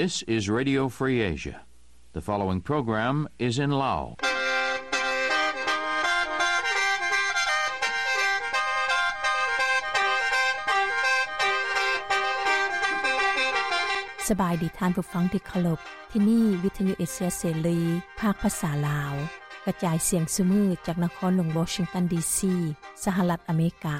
This is Radio Free Asia. The following program is in Lao. ສະບາຍດີທ່ານຜູ້ຟັງທີ່ເຄົາລົບ. ທີ່ນີ້ວິທະຍຸເອເຊຍເສລີ ພາກພາສາລາວ ກະຈາຍສຽງຊຸມື້ຈາກນະຄອນຫຼວງວໍຊິງຕັນ ດີຊີ ສະຫະລັດອາເມລິກາ.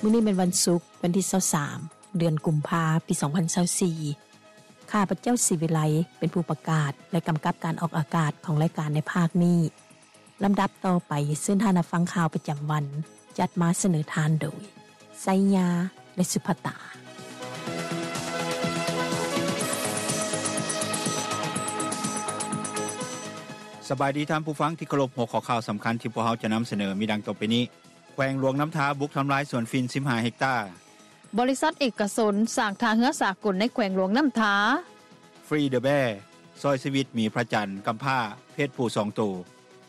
ມື້ນີ້ແມ່ນວັນສຸກ ວັນທີຊາວສາມ ເດືອນກຸມພາ ປີສອງພັນຊາວສີ່. ຂ້າພະເຈົ້າ ສີວິໄລ ເປັນຜູ້ປະກາດ ແລະ ກຳກັບການອອກອາກາດຂອງລາຍການໃນພາກນີ້. ລຳດັບຕໍ່ໄປ ເຊີນທ່ານຮັບຟັງຂ່າວປະຈຳວັນ ຈັດມາສະເໜີທ່ານໂດຍ ໄຊຍາ ແລະ ສຸພັດຕາ. ສະບາຍດີທ່ານຜູ້ຟັງທີ່ເຄົາລົບ. ຫົວຂໍ້ຂ່າວສຳຄັນທີ່ພວກເຮົາຈະນຳສະເໜີມີດັ່ງຕໍ່ໄປນີ້. ແຂວງຫຼວງນ້ຳທາບຸກທຳລາຍສວນຝິ່ນສິບຫ້າເຮັກຕາ. ບໍລິສັດເອກະຊົນສ້າງທ່າເຮືອສາກົນໃນແຂວງຫຼວງນ້ຳທາ. Free the Bear ຊ່ອຍຊີວິດໝີພະຈັນກຳພ້າເພດຜູ້ສອງໂຕ.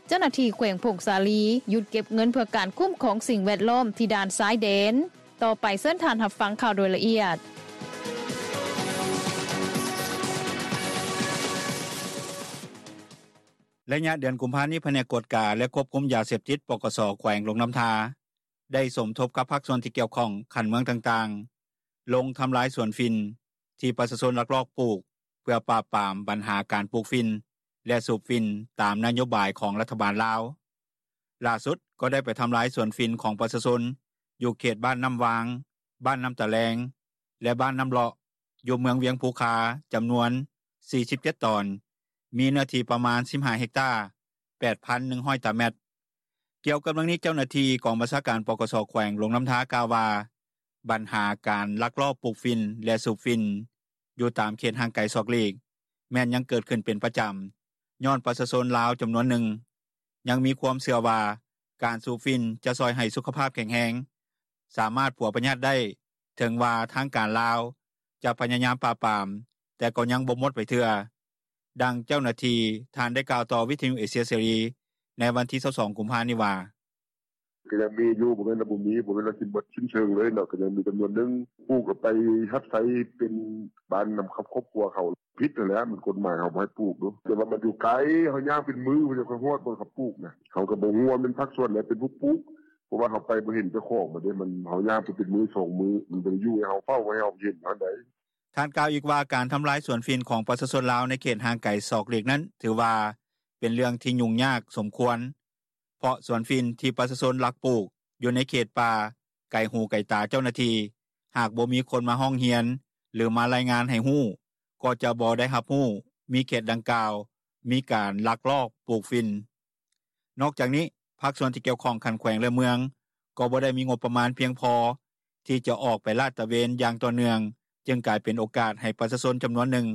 ເຈົ້າໜ້າທີ່ແຂວງຜົ້ງສາລີຢຸດເກັບເງິນເພື່ອການຄຸ້ມຄອງສິ່ງແວດລ້ອມທີ່ດ່ານຊາຍແດນ. ຕໍ່ໄປເຊີນທ່ານຮັບຟັງຂ່າວໂດຍລະອຽດ. ໄລຍະເດືອນກຸມພານີ້ ພະແນກກວດກາ ແລະ ຄວບຄຸມຢາເສບຕິດ ປກສ ແຂວງຫຼວງນ້ຳທາ ໄດ້ສົມທົບກັບພາກສ່ວນທີ່ກ່ຽວຂ້ອງຂັ້ນເມືອງຕ່າງໆ ລົງທຳລາຍສວນຝິ່ນທີ່ປະຊາຊົນລັກລອບປູກ ເພື່ອປາບປາມບັນຫາການປູກຝິ່ນ ແລະ ສູບຝິ່ນຕາມນະໂຍບາຍຂອງລັດຖະບານລາວ. ຫຼ້າສຸດກໍໄດ້ໄປທຳລາຍສວນຝິ່ນຂອງປະຊາຊົນ ຢູ່ເຂດບ້ານນ້ຳວາງ, ບ້ານນ້ຳຕາແລງ ແລະ ບ້ານນ້ຳເລາະ ຢູ່ເມືອງວຽງພູຄາ ຈຳນວນສີ່ສິບເຈັດຕອນ, ມີເນື້ອທີ່ປະມານສິບຫ້າເຮັກຕາ, ແປດພັນໜຶ່ງຮ້ອຍຕາແມັດ. ກ່ຽວກັບເລື່ອງນີ້, ເຈົ້າໜ້າທີ່ກອງບັນຊາການ ປກສ ແຂວງຫຼວງນ້ຳທາ ກ່າວວ່າ ບັນຫາການລັກລອບປູກຝິ່ນ ແລະ ສູບຝິ່ນຢູ່ຕາມເຂດຫ່າງໄກສອກຫຼີກ ແມ່ນຍັງເກີດຂຶ້ນເປັນປະຈຳ, ຍ້ອນປະຊາຊົນລາວຈຳນວນໜຶ່ງ ຍັງມີຄວາມເຊື່ອວ່າ ການສູບຝິ່ນຈະຊ່ອຍໃຫ້ສຸຂະພາບແຂງແຮງ, ສາມາດປົວພະຍາດໄດ້, ເຖິງວ່າທາງການລາວຈະພະຍາຍາມປາບປາມ, ແຕ່ກໍຍັງບໍ່ໝົດໄປເທື່ອ. ດັ່ງເຈົ້າໜ້າທີ່ທ່ານໄດ້ກ່າວຕໍ່ວິທະຍຸເອເຊຍເສລີ ໃນວັນທີຊາວສອງ ກຸມພານີ້ວ່າ: ກໍຍັງມີຢູ່, ບໍ່ແມ່ນວ່າບໍ່ມີ, ບໍ່ແມ່ນວ່າຊິໝົດສິ້ນເຊີງເລີຍເນາະ, ກໍຍັງມີຈຳນວນໜຶ່ງ ປູກເອົາໄປຮັບໃຊ້ເປັນບ້ານນຳຄອບຄົວເຂົາ. ຜິດຫັ້ນແຫຼະ, ມັນກົດໝາຍເຂົາບໍ່ໃຫ້ປູກເນາະ, ແຕ່ວ່າມັນຢູ່ໄກ, ເຮົາຍ່າງເປັນມື້ ເຮົາຈັ່ງຄ່ອຍຮອດບ່ອນເຂົາປູກນະ. ເຮົາກໍບໍ່ຮູ້ວ່າແມ່ນພາກສ່ວນໃດເປັນຜູ້ປູກ, ເພາະວ່າເຮົາໄປບໍ່ເຫັນເຈົ້າຂອງມັນເດ້, ມັນ ເຮົາຍ່າງໄປເປັນມື້ສອງມື້, ມັນບໍ່ໄດ້ຢູ່ໃຫ້ເຮົາເຝົ້າ, ບໍ່ໃຫ້ເຮົາເຫັນເທົ່າໃດ. ທ່ານກ່າວອີກວ່າ ການທຳລາຍສວນຝິ່ນຂອງປະຊາຊົນລາວໃນເຂດຫ່າງໄກສອກຫຼີກນັ້ນ ຖືວ່າເປັນເລື່ອງທີ່ຫຍຸ້ງຍາກສົມຄວນ, ເພາະສວນຝິ່ນທີ່ປະຊາຊົນລັກປູກຢູ່ໃນເຂດປ່າ ໄກຫູໄກຕາເຈົ້າໜ້າທີ່, ຫາກບໍ່ມີຄົນມາຮ້ອງຮຽນ ຫຼື ມາລາຍງານໃຫ້ຮູ້, ກໍຈະບໍ່ໄດ້ຮັບຮູ້ມີເຂດດັ່ງກ່າວມີການລັກລອບປູກຝິ່ນ. ນອກຈາກນີ້, ພາກສ່ວນທີ່ກ່ຽວຂ້ອງຂັ້ນແຂວງ ແລະ ເມືອງ ກໍບໍ່ໄດ້ມີງົບປະມານພຽງພໍທີ່ຈະອອກໄປລາດຕະເວນຢ່າງຕໍ່ເນື່ອງ, ຈຶ່ງກາຍເປັນໂອກາດໃຫ້ປະຊາຊົນຈຳນວນໜຶ່ງ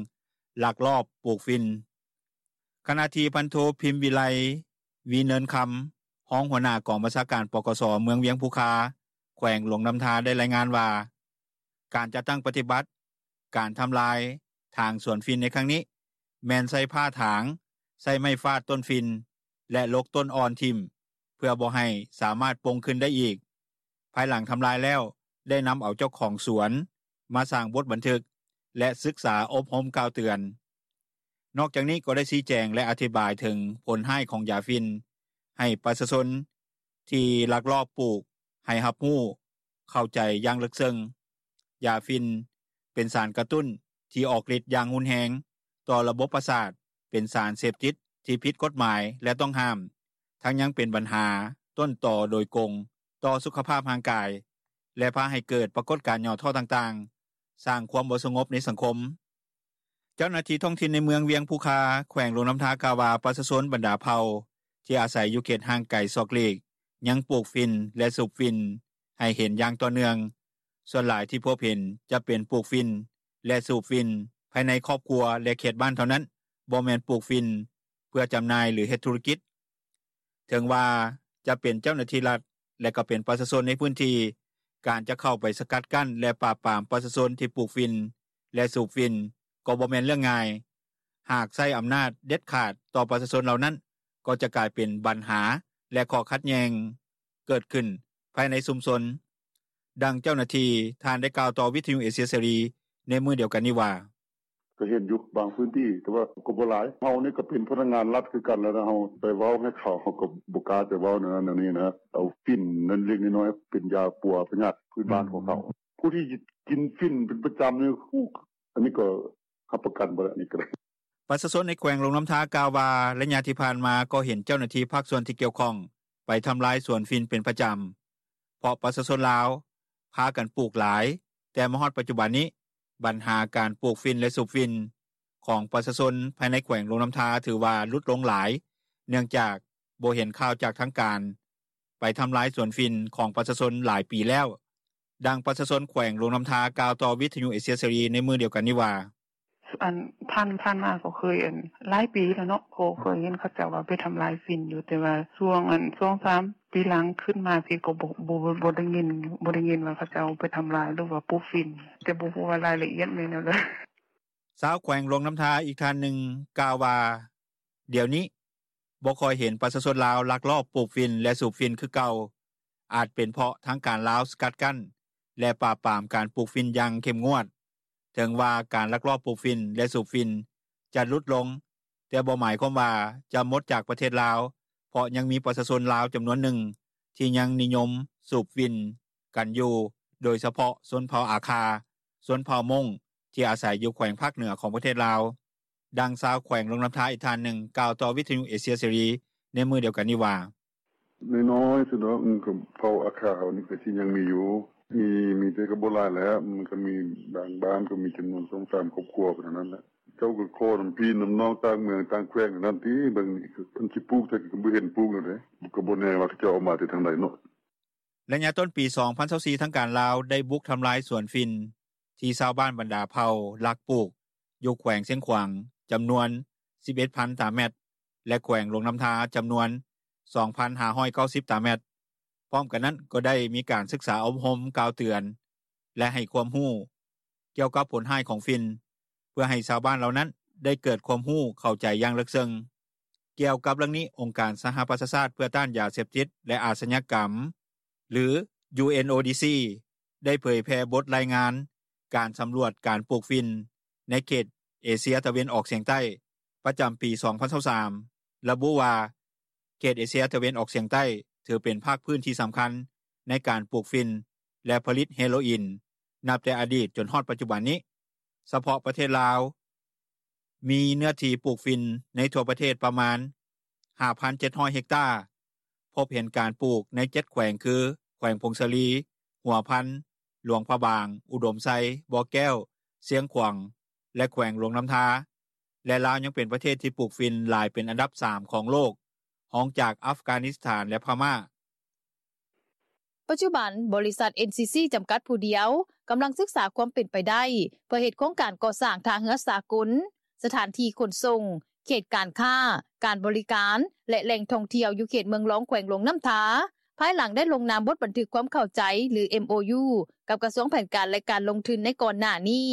ລັກລອບປູກຝິ່ນ. ຂະນະທີ່ ພັນໂທ ພິມວິໄລ ວີເນີນຄຳ ຮອງຫົວໜ້າກອງບັນຊາການ ປກສ ເມືອງວຽງພູຄາ ແຂວງຫຼວງນ້ຳທາ ໄດ້ລາຍງານວ່າ ການຈັດຕັ້ງປະຕິບັດການທຳລາຍຖາງສວນຝິ່ນໃນຄັ້ງນີ້ ແມ່ນໃຊ້ຜ້າຖາງ, ໃຊ້ໄມ້ຟາດຕົ້ນຝິ່ນ ແລະ ຫຼົກຕົ້ນອ່ອນຖິ້ມ ເພື່ອບໍ່ໃຫ້ສາມາດປົ່ງຂຶ້ນໄດ້ອີກ. ພາຍຫຼັງທຳລາຍແລ້ວ ໄດ້ນຳເອົາເຈົ້າຂອງສວນມາສ້າງບົດບັນທຶກ ແລະ ສຶກສາອົບຮົມກ່າວເຕືອນ. ນອກຈາກນີ້ກໍໄດ້ຊີ້ແຈງ ແລະ ອະທິບາຍເຖິງຜົນຮ້າຍຂອງຢາຝິ່ນ ໃຫ້ປະຊາຊົນທີ່ລັກລອບປູກໃຫ້ຮັບຮູ້ເຂົ້າໃຈຢ່າງເລິກເຊິ່ງ. ຢາຝິ່ນເປັນສານກະຕຸ້ນທີ່ອອກລິດຢ່າງຮຸນແຮງຕໍ່ລະບົບປະສາດ, ເປັນສານເສບຕິດທີ່ຜິດກົດໝາຍ ແລະ ຕ້ອງຫ້າມ, ທັງຍັງເປັນບັນຫາຕົ້ນຕໍໂດຍກົງຕໍ່ສຸຂະພາບຮ່າງກາຍ ແລະ ພາໃຫ້ເກີດປາກົດການຫຍໍ້ທໍ້ຕ່າງໆ, ສ້າງຄວາມບໍ່ສະຫງົບໃນສັງຄົມ. ເຈົ້າໜ້າທີ່ທ້ອງຖິ່ນໃນເມືອງວຽງພູຄາ ແຂວງຫຼວງນ້ຳທາ ກ່າວວ່າ ປະຊາຊົນບັນດາເຜົ່າທີ່ອາໄສຢູ່ເຂດຫ່າງໄກສອກຫຼີກ ຍັງປູກຝິ່ນ ແລະ ສູບຝິ່ນໃຫ້ເຫັນຢ່າງຕໍ່ເນື່ອງ. ສ່ວນຫຼາຍທີ່ພົບເຫັນຈະເປັນປູກຝິ່ນ ແລະ ສູບຝິ່ນພາຍໃນຄອບຄົວ ແລະ ເຂດບ້ານເທົ່ານັ້ນ, ບໍ່ແມ່ນປູກຝິ່ນເພື່ອຈຳໜ່າຍ ຫຼື ເຮັດທຸລະກິດ. ເຖິງວ່າຈະເປັນເຈົ້າໜ້າທີ່ລັດ ແລະ ກໍເປັນປະຊາຊົນໃນພື້ນທີ່, ການຈະເຂົ້າໄປສະກັດກັ້ນ ແລະ ປາບປາມປະຊາຊົນທີ່ປູກຝິ່ນ ແລະ ສູບຝິ່ນ ກໍບໍ່ແມ່ນເລື່ອງງ່າຍ. ຫາກໃຊ້ອຳນາດເດັດຂາດຕໍ່ປະຊາຊົນເຫຼົ່ານັ້ນ, ກໍຈະກາຍເປັນບັນຫາ ແລະ ຂໍ້ຂັດແຍ່ງເກີດຂຶ້ນ ພາຍໃນຊຸມຊົນ. ດັ່ງເຈົ້າໜ້າທີ່ທ່ານໄດ້ກ່າວຕໍ່ວິທຍຸເອເຊຍເສລີໃນມື້ດຽວກັນນີ້ວ່າ: “ກະເຫັນຢູ່ບາງພື້ນທີ່ ແຕ່ວ່າກະບໍ່ຫຼາຍ ເຮົານີ້ກະເປັນພະນັກງານລັດຄືກັນ ແລ້ວເຮົາໄປເວົ້າໃຫ້ເຂົາ ເຮົາກະບໍ່ກ້າຈະເວົ້າແນວນັ້ນແນວນີ້ນ່າ ເອົາຝິ່ນເລັກໆນ້ອຍໆ ເປັນຢາປົວພະຍາດພື້ນບ້ານຂອງເຂົາ ຜູ້ທີ່ກິນຝິ່ນເປັນປະຈຳນີ້ ອັນນີ້ກະຮັບປະກັນບໍ່ໄດ້ ອັນນີ້ກະໄດ້.” ປະຊາຊົນໃນແຂວງຫຼວງນ້ຳທາກ່າວວ່າ ໄລຍະທີ່ຜ່ານມາກໍເຫັນເຈົ້າໜ້າທີ່ພາກສ່ວນທີ່ກ່ຽວຂ້ອງ ໄປທຳລາຍສວນຝິ່ນເປັນປະຈຳ ເພາະປະຊາຊົນລາວພາກັນປູກຫຼາຍ ແຕ່ມາຮອດປັດຈຸບັນນີ້ ບັນຫາການປູກຝິ່ນ ແລະ ສູບຝິ່ນ ຂອງປະຊາຊົນພາຍໃນແຂວງຫຼວງນ້ຳທາ ຖືວ່າຫຼຸດລົງຫຼາຍ ເນື່ອງຈາກບໍ່ເຫັນຂ່າວຈາກທາງການ ໄປທຳລາຍສວນຝິ່ນຂອງປະຊາຊົນຫຼາຍປີແລ້ວ. ດັ່ງປະຊາຊົນແຂວງຫຼວງນ້ຳທາກ່າວຕໍ່ວິທຍຸເອເຊຍເສລີໃນມື້ດຽວກັນນີ້ວ່າ: “ອັນຜ່ານມາກະເຄີຍ ອັນຫຼາຍປີແລ້ວເນາະ ກະເຄີຍເຫັນເຂົາເຈົ້າວ່າໄປທຳລາຍຝິ່ນຢູ່ ແຕ່ວ່າຊ່ວງ ອັນສອງສາມປີຫຼັງຂຶ້ນມາພີ້ ກະບໍ່ ບໍ່ໄດ້ຍິນ ບໍ່ໄດ້ຍິນວ່າເຂົາເຈົ້າໄປທຳລາຍ ຫຼືວ່າປູກຝິ່ນ ແຕ່ບໍ່ຮູ້ວ່າລາຍລະອຽດແມ່ນແນວໃດ.” ຊາວແຂວງຫຼວງນ້ຳທາອີກທ່ານໜຶ່ງກ່າວວ່າ ດຽວນີ້ບໍ່ຄ່ອຍເຫັນປະຊາຊົນລາວລັກລອບປູກຝິ່ນ ແລະ ສູບຝິ່ນຄືເກົ່າ ອາດເປັນເພາະທາງການລາວສະກັດກັ້ນ ແລະ ປາບປາມການປູກຝິ່ນຢ່າງເຂັ້ມງວດ ເຖິງວ່າການລັກລອບປູກຝິ່ນ ແລະ ສູບຝິ່ນຈະຫຼຸດລົງ ແຕ່ບໍ່ໝາຍຄວາມວ່າຈະໝົດຈາກປະເທດລາວ ເພາະຍັງມີປະຊາຊົນລາວຈຳນວນໜຶ່ງ ທີ່ຍັງນິຍົມສູບຝິ່ນກັນຢູ່ ໂດຍສະເພາະຊົນເຜົ່າອາຄາ, ຊົນເຜົ່າມົ້ງ ທີ່ອາໄສຢູ່ແຂວງພາກເໜືອຂອງປະເທດລາວ. ດັ່ງຊາວແຂວງຫຼວງນ້ຳທາອີກທ່ານໜຶ່ງກ່າວຕໍ່ວິທຍຸເອເຊຍເສລີໃນມື້ດຽວກັນນີ້ວ່າ: “ນ້ອຍໆສຸດດອກ ເຜົ່າອາຄາເຮົານີ້ກະຊິຍັງມີຢູ່ ມີ ມີແຕ່ກະບໍ່ຫຼາຍແລ້ວ ມັນກະມີບາງບ້ານ ກະມີຈຳນວນສອງສາມຄອບຄົວເທົ່ານັ້ນແຫຼະ ເຈົ້າກະຂໍນຳພີ່ນຳນ້ອງຕ່າງເມືອງຕ່າງແຂວງນັ້ນຕິ ເບິ່ງເພິ່ນຊິປູກ ແຕ່ກະບໍ່ເຫັນປູກແນວໃດ ກະບໍ່ແນ່ວ່າເຂົາເຈົ້າເອົາມາແຕ່ທາງໃດເນາະ.” ໄລຍະຕົ້ນປີສອງພັນຊາວສີ່ ທາງການລາວໄດ້ບຸກທຳລາຍສວນຝິ່ນ ທີ່ຊາວບ້ານບັນດາເຜົ່າລັກປູກຢູ່ແຂວງຊຽງຂວາງ ຈຳນວນສິບເອັດພັນຕາແມັດ ແລະ ແຂວງຫຼວງນ້ຳທາ ຈຳນວນສອງພັນຫ້າຮ້ອຍເກົ້າສິບຕາແມັດ. ພ້ອມກັນນັ້ນກໍໄດ້ມີການສຶກສາອົບຮົມກ່າວເຕືອນ ແລະ ໃຫ້ຄວາມຮູ້ກ່ຽວກັບຜົນຮ້າຍຂອງຝິ່ນ ເພື່ອໃຫ້ຊາວບ້ານເຫຼົ່ານັ້ນໄດ້ເກີດຄວາມຮູ້ເຂົ້າໃຈຢ່າງເລິກເຊິ່ງ. ກ່ຽວກັບເລື່ອງນີ້ ອົງການສະຫະປະຊາຊາດເພື່ອຕ້ານຢາເສບຕິດ ແລະ ອາຊະຍາກຳ ຫຼື UNODC ໄດ້ເຜີຍແຜ່ບົດລາຍງານການສຳຫຼວດການປູກຝິ່ນໃນເຂດເອເຊຍຕາເວັນອອກສຽງໃຕ້ ປະຈຳປີສອງພັນຊາວສາມ ລະບຸວ່າ ເຂດເອເຊຍຕາເວັນອອກສຽງໃຕ້ ຖືເປັນພາກພື້ນທີ່ສຳຄັນໃນການປູກຝິ່ນ ແລະ ຜະລິດເຮໂຣອິນ ນັບແຕ່ອະດີດຈົນຮອດປັດຈຸບັນນີ້. ສະເພາະປະເທດລາວ ມີເນື້ອທີ່ປູກຝິ່ນໃນທົ່ວປະເທດປະມານຫ້າພັນເຈັດຮ້ອຍເຮັກຕາ ພົບເຫັນການປູກໃນເຈັດແຂວງຄື ແຂວງຜົ້ງສາລີ, ຫົວພັນ, ຫຼວງພະບາງ, ອຸດົມໄຊ, ບໍ່ແກ້ວ, ຊຽງຂວາງ ແລະ ແຂວງຫຼວງນ້ຳທາ ແລະ ລາວຍັງເປັນປະເທດທີ່ປູກຝິ່ນຫຼາຍເປັນອັນດັບສາມຂອງໂລກ ຮອງຈາກອັຟການິສຖານ ແລະ ພະມ້າ. ປັດຈຸບັນ ບໍລິສັດ ເອັນຊີຊີ ຈຳກັດຜູ້ດຽວ ກຳລັງສຶກສາຄວາມເປັນໄປໄດ້ ເພື່ອເຮັດໂຄງການກໍ່ສ້າງທ່າເຮືອສາກົນ, ສະຖານທີ່ຂົນສົ່ງ, ເຂດການຄ້າ, ການບໍລິການ ແລະ ແຫຼ່ງທ່ອງທ່ຽວຢູ່ເຂດເມືອງລອງ ແຂວງຫຼວງນ້ຳທາ ພາຍຫຼັງໄດ້ລົງນາມບົດບັນທຶກຄວາມເຂົ້າໃຈ ຫຼື ເອັມໂອຢູ ກັບກະຊວງແຜນການ ແລະ ການລົງທຶນໃນກ່ອນໜ້ານີ້.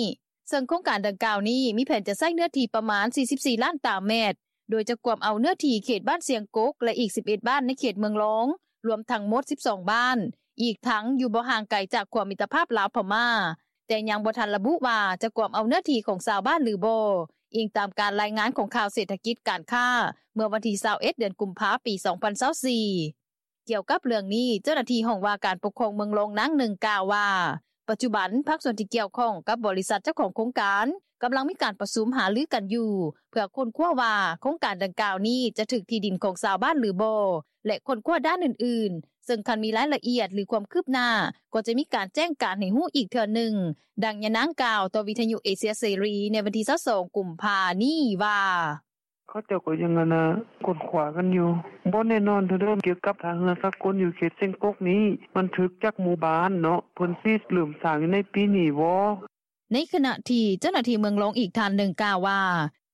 ເຊິ່ງໂຄງການດັ່ງກ່າວນີ້ ມີແຜນຈະໃຊ້ເນື້ອທີ່ປະມານສີ່ສິບສີ່ລ້ານຕາແມັດ ໂດຍຈະກວມເອົາເນື້ອທີ່ເຂດບ້ານຊຽງກົກ ແລະ ອີກສິບເອັດບ້ານໃນເຂດເມືອງລອງ ລວມທັງໝົດສິບສອງບ້ານ, ອີກທັງຢູ່ບໍ່ຫ່າງໄກຈາກຂົວມິດຕະພາບລາວ-ພະມ້າ, ແຕ່ຍັງບໍ່ທັນລະບຸວ່າຈະກວມເອົາເນື້ອທີ່ຂອງຊາວບ້ານຫຼືບໍ່, ອີງຕາມການລາຍງານຂອງຂ່າວເສດຖະກິດການຄ້າ ເມື່ອວັນທີຊາວເອັດ ເດືອນກຸມພາ ປີສອງພັນຊາວສີ່. ກ່ຽວກັບເລື່ອງນີ້, ເຈົ້າໜ້າທີ່ຫ້ອງວ່າການປົກຄອງເມືອງລອງນາງໜຶ່ງກ່າວວ່າ ປັດຈຸບັນພາກສ່ວນທີ່ກ່ຽວຂ້ອງກັບບໍລິສັດເຈົ້າຂອງໂຄງການ ກຳລັງມີການປະຊຸມຫາລືກັນຢູ່ ເພື່ອຄົ້ນຄວ້າວ່າໂຄງການດັ່ງກ່າວນີ້ຈະຖືກທີ່ດິນຂອງຊາວບ້ານຫຼືບໍ່ ແລະ ຄົ້ນຄວ້າດ້ານອື່ນໆ ເຊິ່ງຄັນມີລາຍລະອຽດ ຫຼື ຄວາມຄືບໜ້າ ກໍຈະມີການແຈ້ງການໃຫ້ຮູ້ອີກເທື່ອໜຶ່ງ, ດັ່ງຍານາງກ່າວຕໍ່ວິທະຍຸເອເຊຍເສລີໃນວັນທີຊາວສອງ ກຸມພານີ້ວ່າ: “ເຂົາເຈົ້າກະຍັງ ອັນນ່າ ຄົ້ນຄວ້າກັນຢູ່ ບໍ່ແນ່ນອນເທື່ອເດີ ກ່ຽວກັບທ່າເຮືອສາກົນຢູ່ເຂດຊຽງກົກນີ້ ມັນຖືກຈັກໝູ່ບ້ານເນາະ ເພິ່ນຊິເລີ່ມສ້າງຢູ່ໃນປີນີ້ບໍ່.” ໃນຂະນະທີ່ເຈົ້າໜ້າທີ່ເມືອງລອງອີກທ່ານໜຶ່ງກ່າວວ່າ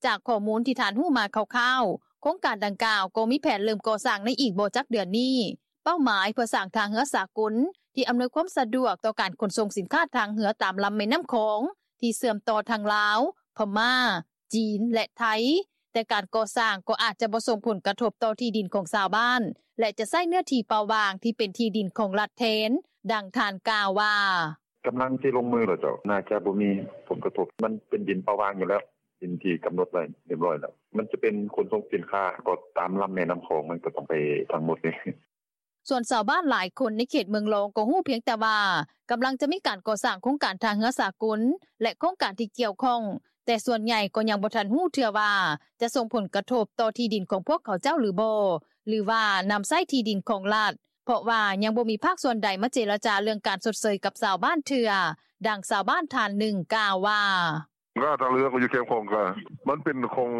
ຈາກຂໍ້ມູນທີ່ທ່ານຮູ້ມາຄ່າວໆ ໂຄງການດັ່ງກ່າວກໍມີແຜນເລີ່ມກໍ່ສ້າງໃນອີກບໍ່ຈັກເດືອນນີ້, ເປົ້າໝາຍເພື່ອສ້າງທ່າເຮືອສາກົນທີ່ອຳນວຍຄວາມສະດວກຕໍ່ການຂົນສົ່ງສິນຄ້າທາງເຮືອຕາມລຳແມ່ນ້ຳຂອງ ທີ່ເຊື່ອມຕໍ່ທັງລາວ, ພະມ້າ, ຈີນ ແລະ ໄທ, ແຕ່ການກໍ່ສ້າງ ກໍອາດຈະບໍ່ສົ່ງຜົນກະທົບ ຕໍ່ທີ່ດິນຂອງຊາວບ້ານ ແລະ ຈະໃຊ້ເນື້ອທີ່ເປົ່າວ່າງ ທີ່ເປັນທີ່ດິນຂອງລັດແທນ. ດັ່ງທ່ານກ່າວວ່າ: “ກຳລັງຊິລົງມືແລ້ວເຈົ້າ ໜ້າຈະບໍ່ມີຜົນກະທົບ ມັນເປັນດິນເປົ່າວ່າງຢູ່ແລ້ວ ດິນທີ່ກຳນົດໄວ້ຮຽບຮ້ອຍແລ້ວ ມັນຈະເປັນຂົນສົ່ງສິນຄ້າ ກໍຕາມລຳແມ່ນ້ຳຂອງ ມັນກໍຕ້ອງໄປທັງໝົດເດ້.” ສ່ວນຊາວບ້ານຫຼາຍຄົນ ໃນເຂດເມືອງລອງ ກໍຮູ້ພຽງແຕ່ວ່າ ກຳລັງຈະມີການກໍ່ສ້າງໂຄງການທ່າເຮືອສາກົນ ແລະ ໂຄງການທີ່ກ່ຽວຂ້ອງ ແຕ່ສ່ວນໃຫຍ່ກໍຍັງບໍ່ທັນຮູ້ເທື່ອວ່າ ຈະສົ່ງຜົນກະທົບຕໍ່ທີ່ດິນຂອງພວກເຂົາເຈົ້າຫຼືບໍ່ ຫຼືວ່ານຳໃຊ້ທີ່ດິນຂອງລັດ ເພາະວ່າຍັງບໍ່ມີພາກສ່ວນໃດ ມາເຈລະຈາເລື່ອງການຊົດເຊີຍກັບຊາວບ້ານເທື່ອ. ດັ່ງຊາວບ້ານທ່ານໜຶ່ງກ່າວວ່າ: “ກະທ່າເຮືອກໍຢູ່ແຄມຂອງ ກະມັນເປັນຂອງ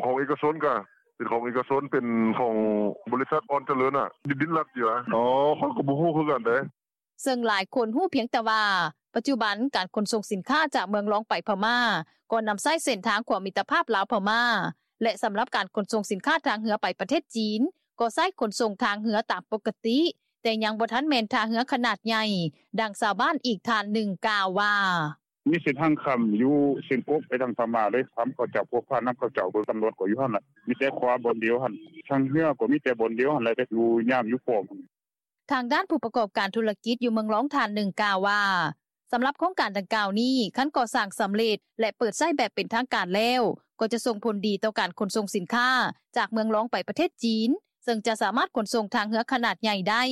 ຂອງເອກະຊົນ ກະເປັນຂອງເອກະຊົນ ເປັນຂອງບໍລິສັດອ່ອນຈະເລີນ ດິນລັດຢູ່ ອໍ ຂ້ອຍກໍບໍ່ຮູ້ຄືກັນເດ້.” ເຊິ່ງຫຼາຍຄົນຮູ້ພຽງແຕ່ວ່າ ປັດຈຸບັນ ການຂົນສົ່ງສິນຄ້າຈາກເມືອງລອງໄປພະມ້າ ກໍນຳໃຊ້ເສັ້ນທາງຂົວມິດຕະພາບລາວ-ພະມ້າ ແລະ ສຳລັບການຂົນສົ່ງສິນຄ້າທາງເຮືອໄປປະເທດຈີນ ກໍໃຊ້ຂົນສົ່ງທາງເຮືອຕາມປົກກະຕິ ແຕ່ຍັງບໍ່ທັນແມ່ນທ່າເຮືອຂະໜາດໃຫຍ່. ດັ່ງຊາວບ້ານອີກທ່ານໜຶ່ງກ່າວວ່າ: “ມີເສັ້ນທາງຂ້າມຢູ່ຊຽງກົກ ໄປທາງພະມ້າເລີຍ ຂ້າມເຂົາເຈົ້າ ພວກຜ່ານນຳເຂົາເຈົ້າ ຕຳຫຼວດກໍຢູ່ຫັ້ນແຫຼະ ມີແຕ່ຂົວບ່ອນດຽວຫັ້ນ ທາງເຮືອກໍມີແຕ່ບ່ອນດຽວຫັ້ນແຫຼະ ຢູ່ຍາມຢູ່ປ້ອມ.” ທາງດ້ານຜູ້ປະກອບການທຸລະກິດຢູ່ເມືອງລອງທ່ານໜຶ່ງກ່າວວ່າ ສຳລັບໂຄງການດັ່ງກ່າວນີ້ ຄັນກໍ່ສ້າງສຳເລັດ ແລະ ເປີດໃຊ້ແບບເປັນທາງການແລ້ວ ກໍຈະສົ່ງຜົນດີຕໍ່ການຂົນສົ່ງສິນຄ້າ ຈາກເມືອງລອງໄປປະເທດຈີນ ເຊິ່ງຈະສາມາດຂົນສົ່ງທາງເຮືອຂະໜາດໃຫຍ່ໄດ້.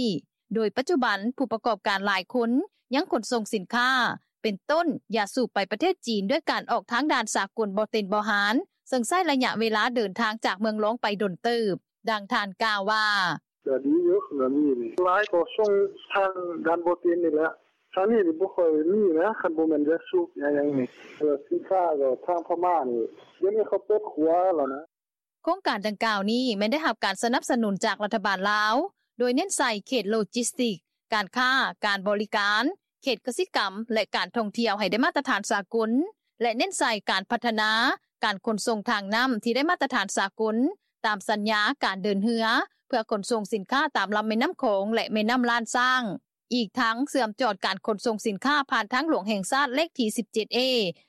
ໂດຍປັດຈຸບັນ ຜູ້ປະກອບການຫຼາຍຄົນ ຍັງຂົນສົ່ງສິນຄ້າ ເປັນຕົ້ນ ຢາສູບ ໄປປະເທດຈີນ ດ້ວຍການອອກທາງດ່ານສາກົນບໍ່ເຕັນບໍ່ຫານ ເຊິ່ງໃຊ້ໄລຍະເວລາເດີນທາງຈາກເມືອງລອງໄປດົນເຕີບ. ດັ່ງທ່ານກ່າວວ່າ: “ກະດີຢູ່ ລາວນີ້ ຫຼາຍກໍສົ່ງທາງດ່ານບໍ່ເຕັນນີ້ແຫຼະ ທາງນີ້ບໍ່ຄ່ອຍມີນະ ຄັນບໍ່ແມ່ນຢາສູບຢາຫຍັງນີ້ ສິນຄ້າກໍທາງພະມ້ານີ້ ດຽວນີ້ເຂົາເປີດຂົວແລ້ວນະ.” ໂຄງການດັ່ງກ່າວນີ້ ແມ່ນໄດ້ຮັບການສະໜັບສະໜູນຈາກລັດຖະບານລາວ ໂດຍເນັ້ນໃສ່ເຂດໂລຈິສຕິກ, ການຄ້າ, ການບໍລິການ, ເຂດກະສິກຳ ແລະ ການທ່ອງທ່ຽວໃຫ້ໄດ້ມາດຕະຖານສາກົນ ແລະ ເນັ້ນໃສ່ການພັດທະນາການຂົນສົ່ງທາງນ້ຳ ທີ່ໄດ້ມາດຕະຖານສາກົນ ຕາມສັນຍາການເດີນເຮືອ ເພື່ອຂົນສົ່ງສິນຄ້າຕາມລຳແມ່ນ້ຳຂອງ ແລະ ແມ່ນ້ຳລ້ານຊ້າງ. ອີກທັງເຊື່ອມຈອດການຂົນສົ່ງສິນຄ້າຜ່ານທາງຫຼວງແຫ່ງຊາດເລກທີສິບເຈັດເອ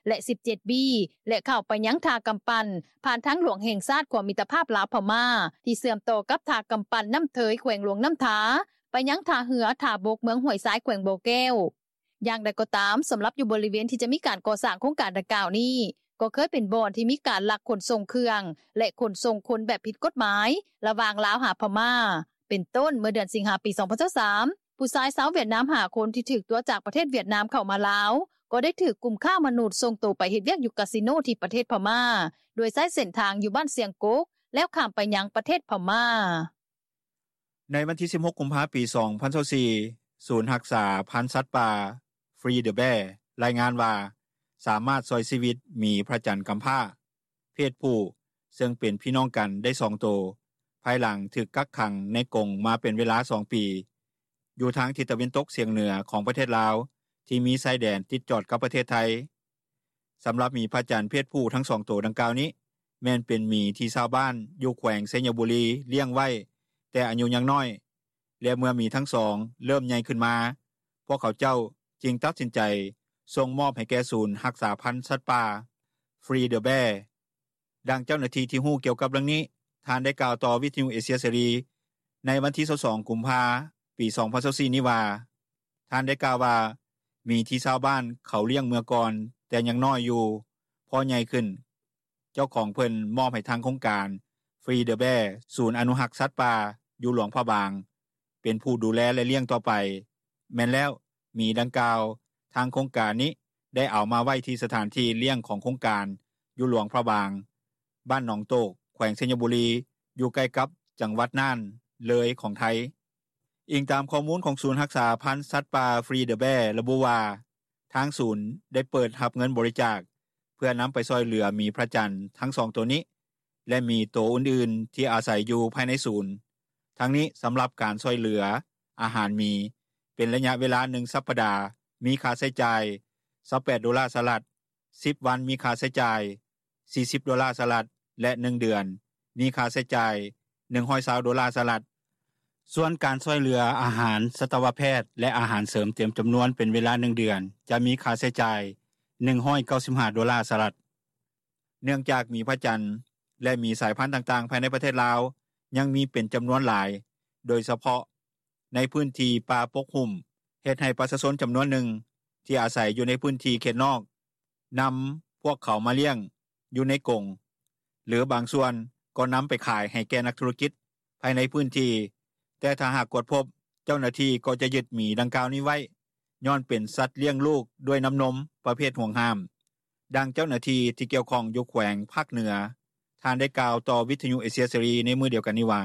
ແລະ ສິບເຈັດບີ ແລະ ເຂົ້າໄປຍັງທ່າກຳປັ່ນ ຜ່ານທາງຫຼວງແຫ່ງຊາດຂົວມິດຕະພາບລາວ-ພະມ້າ ທີ່ເຊື່ອມຕໍ່ກັບທ່າກຳປັ່ນນ້ຳເທີຍ ແຂວງຫຼວງນ້ຳທາ ໄປຍັງທ່າເຮືອທ່າບົກເມືອງຫ້ວຍຊາຍ ແຂວງບໍ່ແກ້ວ. ຢ່າງໃດກໍຕາມ, ສຳລັບຢູ່ບໍລິເວນທີ່ຈະມີການກໍ່ສ້າງໂຄງການດັ່ງກ່າວນີ້ ກໍເຄີຍເປັນບ່ອນທີ່ມີການລັກຂົນສົ່ງເຄື່ອງ ແລະ ຂົນສົ່ງຄົນແບບຜິດກົດໝາຍ ລະຫວ່າງລາວຫາພະມ້າ ເປັນຕົ້ນ ເມື່ອເດືອນສິງຫາ ປີສອງພັນຊາວສາມ ຜູ້ຊາຍຊາວຫວຽດນາມຫ້າຄົນທີ່ຖືກຕົວະຈາກປະເທດຫວຽດນາມເຂົ້າມາລາວ ກໍໄດ້ຖືກກຸ່ມຄ້າມະນຸດສົ່ງໂຕໄປເຮັດວຽກຢູ່ກາສິໂນທີ່ປະເທດພະມ້າ ໂດຍໃຊ້ເສັ້ນທາງຢູ່ບ້ານຊຽງກົກ ແລ້ວຂ້າມໄປຍັງປະເທດພະມ້າ. ໃນວັນທີສິບຫົກ ກຸມພາ ປີສອງພັນຊາວສີ່ ສູນຮັກສາພັນສັດປ່າ Free the Bear ລາຍງານວ່າ ສາມາດຊ່ອຍຊີວິດໝີພະຈັນກຳພ້າ ເພດຜູ້ ເຊິ່ງເປັນພີ່ນ້ອງກັນໄດ້ສອງໂຕ ພາຍຫຼັງຖືກກັກຂັງໃນກົງມາເປັນເວລາສອງປີ ຢູ່ທາງທິດຕາເວັນຕົກສຽງເໜືອຂອງປະເທດລາວ ທີ່ມີຊາຍແດນຕິດຈອດກັບປະເທດໄທ. ສຳລັບໝີພະຈັນເພດຜູ້ທັງສອງໂຕດັ່ງກ່າວນີ້ ແມ່ນເປັນໝີທີ່ຊາວບ້ານຢູ່ແຂວງໄຊຍະບູລີລ້ຽງໄວ້ແຕ່ອາຍຸຍັງນ້ອຍ ແລະ ເມື່ອໝີທັງສອງເລີ່ມໃຫຍ່ຂຶ້ນມາ ພວກເຂົາເຈົ້າຈຶ່ງຕັດສິນໃຈສົ່ງມອບໃຫ້ແກ່ສູນຮັກສາພັນສັດປ່າ Free the Bear. ດັ່ງເຈົ້າໜ້າທີ່ທີ່ຮູ້ກ່ຽວກັບເລື່ອງນີ້ ທ່ານໄດ້ກ່າວຕໍ່ວິທະຍຸເອເຊຍເສລີ ໃນວັນທີຊາວສອງ ກຸມພາ ປີສອງພັນຊາວສີ່ນີ້ວ່າ ທ່ານໄດ້ກ່າວວ່າ ໝີທີ່ຊາວບ້ານເຂົາລ້ຽງເມື່ອກ່ອນແຕ່ຍັງນ້ອຍຢູ່ ພໍໃຫຍ່ຂຶ້ນ ເຈົ້າຂອງເພິ່ນມອບໃຫ້ທາງໂຄງການ Free the Bear ສູນອະນຸຮັກສັດປ່າຢູ່ຫຼວງພະບາງ ເປັນຜູ້ດູແລ ແລະ ລ້ຽງຕໍ່ໄປ. ແມ່ນແລ້ວ ໝີດັ່ງກ່າວ ທາງໂຄງການນີ້ໄດ້ເອົາມາໄວ້ທີ່ສະຖານທີ່ລ້ຽງຂອງໂຄງການຢູ່ຫຼວງພະບາງ ບ້ານໜອງໂຕກ ແຂວງໄຊຍະບູລີ ຢູ່ໃກ້ກັບຈັງຫວັດນ່ານ ເລີຍ ຂອງໄທ. ອີງຕາມຂໍ້ມູນຂອງສູນຮັກສາພັນສັດປ່າ Free the Bear ລະບຸວ່າ ທາງສູນໄດ້ເປີດຮັບເງິນບໍລິຈາກ ເພື່ອນຳໄປຊ່ອຍເຫຼືອໝີພະຈັນທັງສອງໂຕນີ້ ແລະ ໝີໂຕອື່ນໆທີ່ອາໄສຢູ່ພາຍໃນສູນ. ທັງນີ້ ສຳລັບການຊ່ອຍເຫຼືອອາຫານໝີ ເປັນໄລຍະເວລາໜຶ່ງສັບປະດາ ມີຄ່າໃຊ້ຈ່າຍຊາວແປດໂດລາສະຫະລັດ, ສິບວັນມີຄ່າໃຊ້ຈ່າຍສີ່ສິບໂດລາສະຫະລັດ ແລະ ໜຶ່ງເດືອນມີຄ່າໃຊ້ຈ່າຍໜຶ່ງຮ້ອຍຊາວໂດລາສະຫະລັດ. ສ່ວນການຊ່ອຍເຫຼືອອາຫານສັດຕະວະແພດ ແລະ ອາຫານເສີມເຕັມຈຳນວນເປັນເວລາໜຶ່ງເດືອນ ຈະມີຄ່າໃຊ້ຈ່າຍໜຶ່ງຮ້ອຍເກົ້າສິບຫ້າໂດລາສະຫະລັດ. ເນື່ອງຈາກໝີພະຈັນ ແລະ ໝີສາຍພັນຕ່າງໆ ພາຍໃນປະເທດລາວ ຍັງມີເປັນຈຳນວນຫຼາຍ ໂດຍສະເພາະ ໃນພື້ນທີ່ປ່າປົກຫຸ້ມ ເຮັດໃຫ້ປະຊາຊົນຈຳນວນໜຶ່ງ ທີ່ອາໄສຢູ່ໃນພື້ນທີ່ເຂດນອກ ນຳພວກເຂົາມາລ້ຽງຢູ່ໃນກົງ ຫຼືບາງສ່ວນກໍນຳໄປຂາຍໃຫ້ແກ່ນັກທຸລະກິດ ພາຍໃນພື້ນທີ່ ແຕ່ຖ້າຫາກກວດພົບ ເຈົ້າໜ້າທີ່ກໍຈະຍຶດໝີດັ່ງກ່າວນີ້ໄວ້ ຍ້ອນເປັນສັດລ້ຽງລູກດ້ວຍນ້ຳນົມ ປະເພດຫວງຫ້າມ. ດັ່ງເຈົ້າໜ້າທີ່ ທີ່ກ່ຽວຂ້ອງຢູ່ແຂວງພາກເໜືອ ທ່ານໄດ້ກ່າວຕໍ່ວິທຍຸເອເຊຍເສລີ ໃນມື້ດຽວກັນນີ້ວ່າ: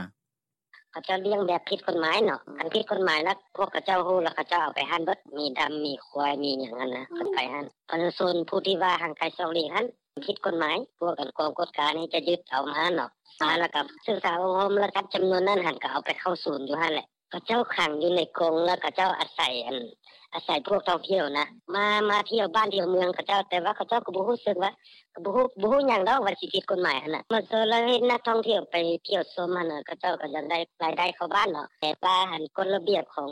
ເຂົາເຈົ້າລ້ຽງແບບຜິດກົດໝາຍເນາະ ຄັນຜິດກົດໝາຍລະ ພວກເຂົາເຈົ້າຮູ້ລະ ເຂົາເຈົ້າເອົາໄປຫັ້ນເບິດ ໝີດຳ ໝີຄວາຍ ໝີຫຍັງຫັ້ນນະ ເພິ່ນໄປຫັ້ນ ປະຊາຊົນຜູ້ທີ່ວ່າຫ່າງໄກສອກຫຼີກຫັ້ນ ຜິດກົດໝາຍ ພວກກອງກວດການີ້ຈະຍຶດເອົາມາເນາະ ມາລະກະສຶກສາອົບຮົມ ລະຈັບຈຳນວນນັ້ນຫັ້ນ ກະເອົາໄປເຂົ້າສູນຢູ່ຫັ້ນແຫຼະ ເຂົາເຈົ້າຂັງຢູ່ໃນກົງ ລະເຂົາເຈົ້າອາໄສ ອາໄສພວກທ່ອງທ່ຽວຫັ້ນນະ ມາ ມາທ່ຽວບ້ານທ່ຽວເມືອງເຂົາເຈົ້າ ແຕ່ວ່າເຂົາເຈົ້າກະບໍ່ຮູ້ສຶກວ່າ ກະບໍ່ຮູ້ຫຍັງດອກວ່າຊິຜິດກົດໝາຍຫັ້ນນະ ມາເຊີນລະເຮັດນັກທ່ອງທ່ຽວໄປທ່ຽວຊົມຫັ້ນນະ ເຂົາເຈົ້າກະຢາກໄດ້ລາຍໄດ້ເຂົ້າບ້ານເນາະ ແຕ່ວ່າກົດລະບຽບຂອງ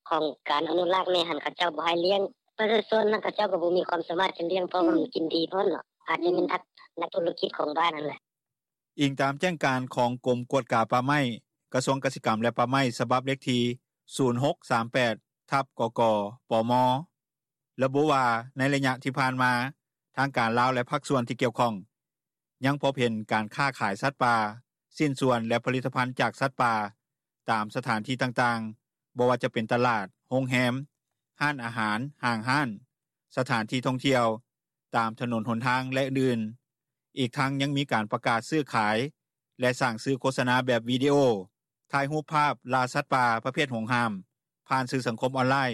ຂອງການອະນຸລັກນີ້ຫັ້ນ ເຂົາເຈົ້າບໍ່ໃຫ້ລ້ຽງ ປະຊາຊົນຫັ້ນ ເຂົາເຈົ້າກະບໍ່ມີຄວາມສາມາດຈະລ້ຽງ ເພາະວ່າມັນກິນດີໂພດເນາະ ອາດຈະແມ່ນນັກທຸລະກິດຂອງບ້ານຫັ້ນແຫຼະ. ອີງຕາມແຈ້ງການຂອງກົມກວດກາປ່າໄມ້ ກະຊວງກະສິກຳ ແລະ ປ່າໄມ້ ສະບັບເລກທີ ສູນຫົກສາມແປດ ທັບ ກກ ປມ ລະບຸວ່າ ໃນໄລຍະທີ່ຜ່ານມາ ທາງການລາວ ແລະ ພາກສ່ວນທີ່ກ່ຽວຂ້ອງ ຍັງພົບເຫັນການຄ້າຂາຍສັດປ່າ, ຊິ້ນສ່ວນ ແລະ ຜະລິດຕະພັນຈາກສັດປ່າ ຕາມສະຖານທີ່ຕ່າງໆ ບໍ່ວ່າຈະເປັນຕະຫຼາດ, ໂຮງແຮມ, ຮ້ານອາຫານ, ຫ້າງຮ້ານ, ສະຖານທີ່ທ່ອງທ່ຽວ, ຕາມຖະໜົນຫົນທາງ ແລະ ອື່ນໆ. ອີກທັງຍັງມີການປະກາດຊື້ຂາຍ ແລະ ສ້າງສື່ໂຄສະນາແບບວິດີໂອ, ຖ່າຍຮູບພາບລ່າສັດປ່າປະເພດຫວງຫ້າມ ຜ່ານສື່ສັງຄົມອອນລາຍ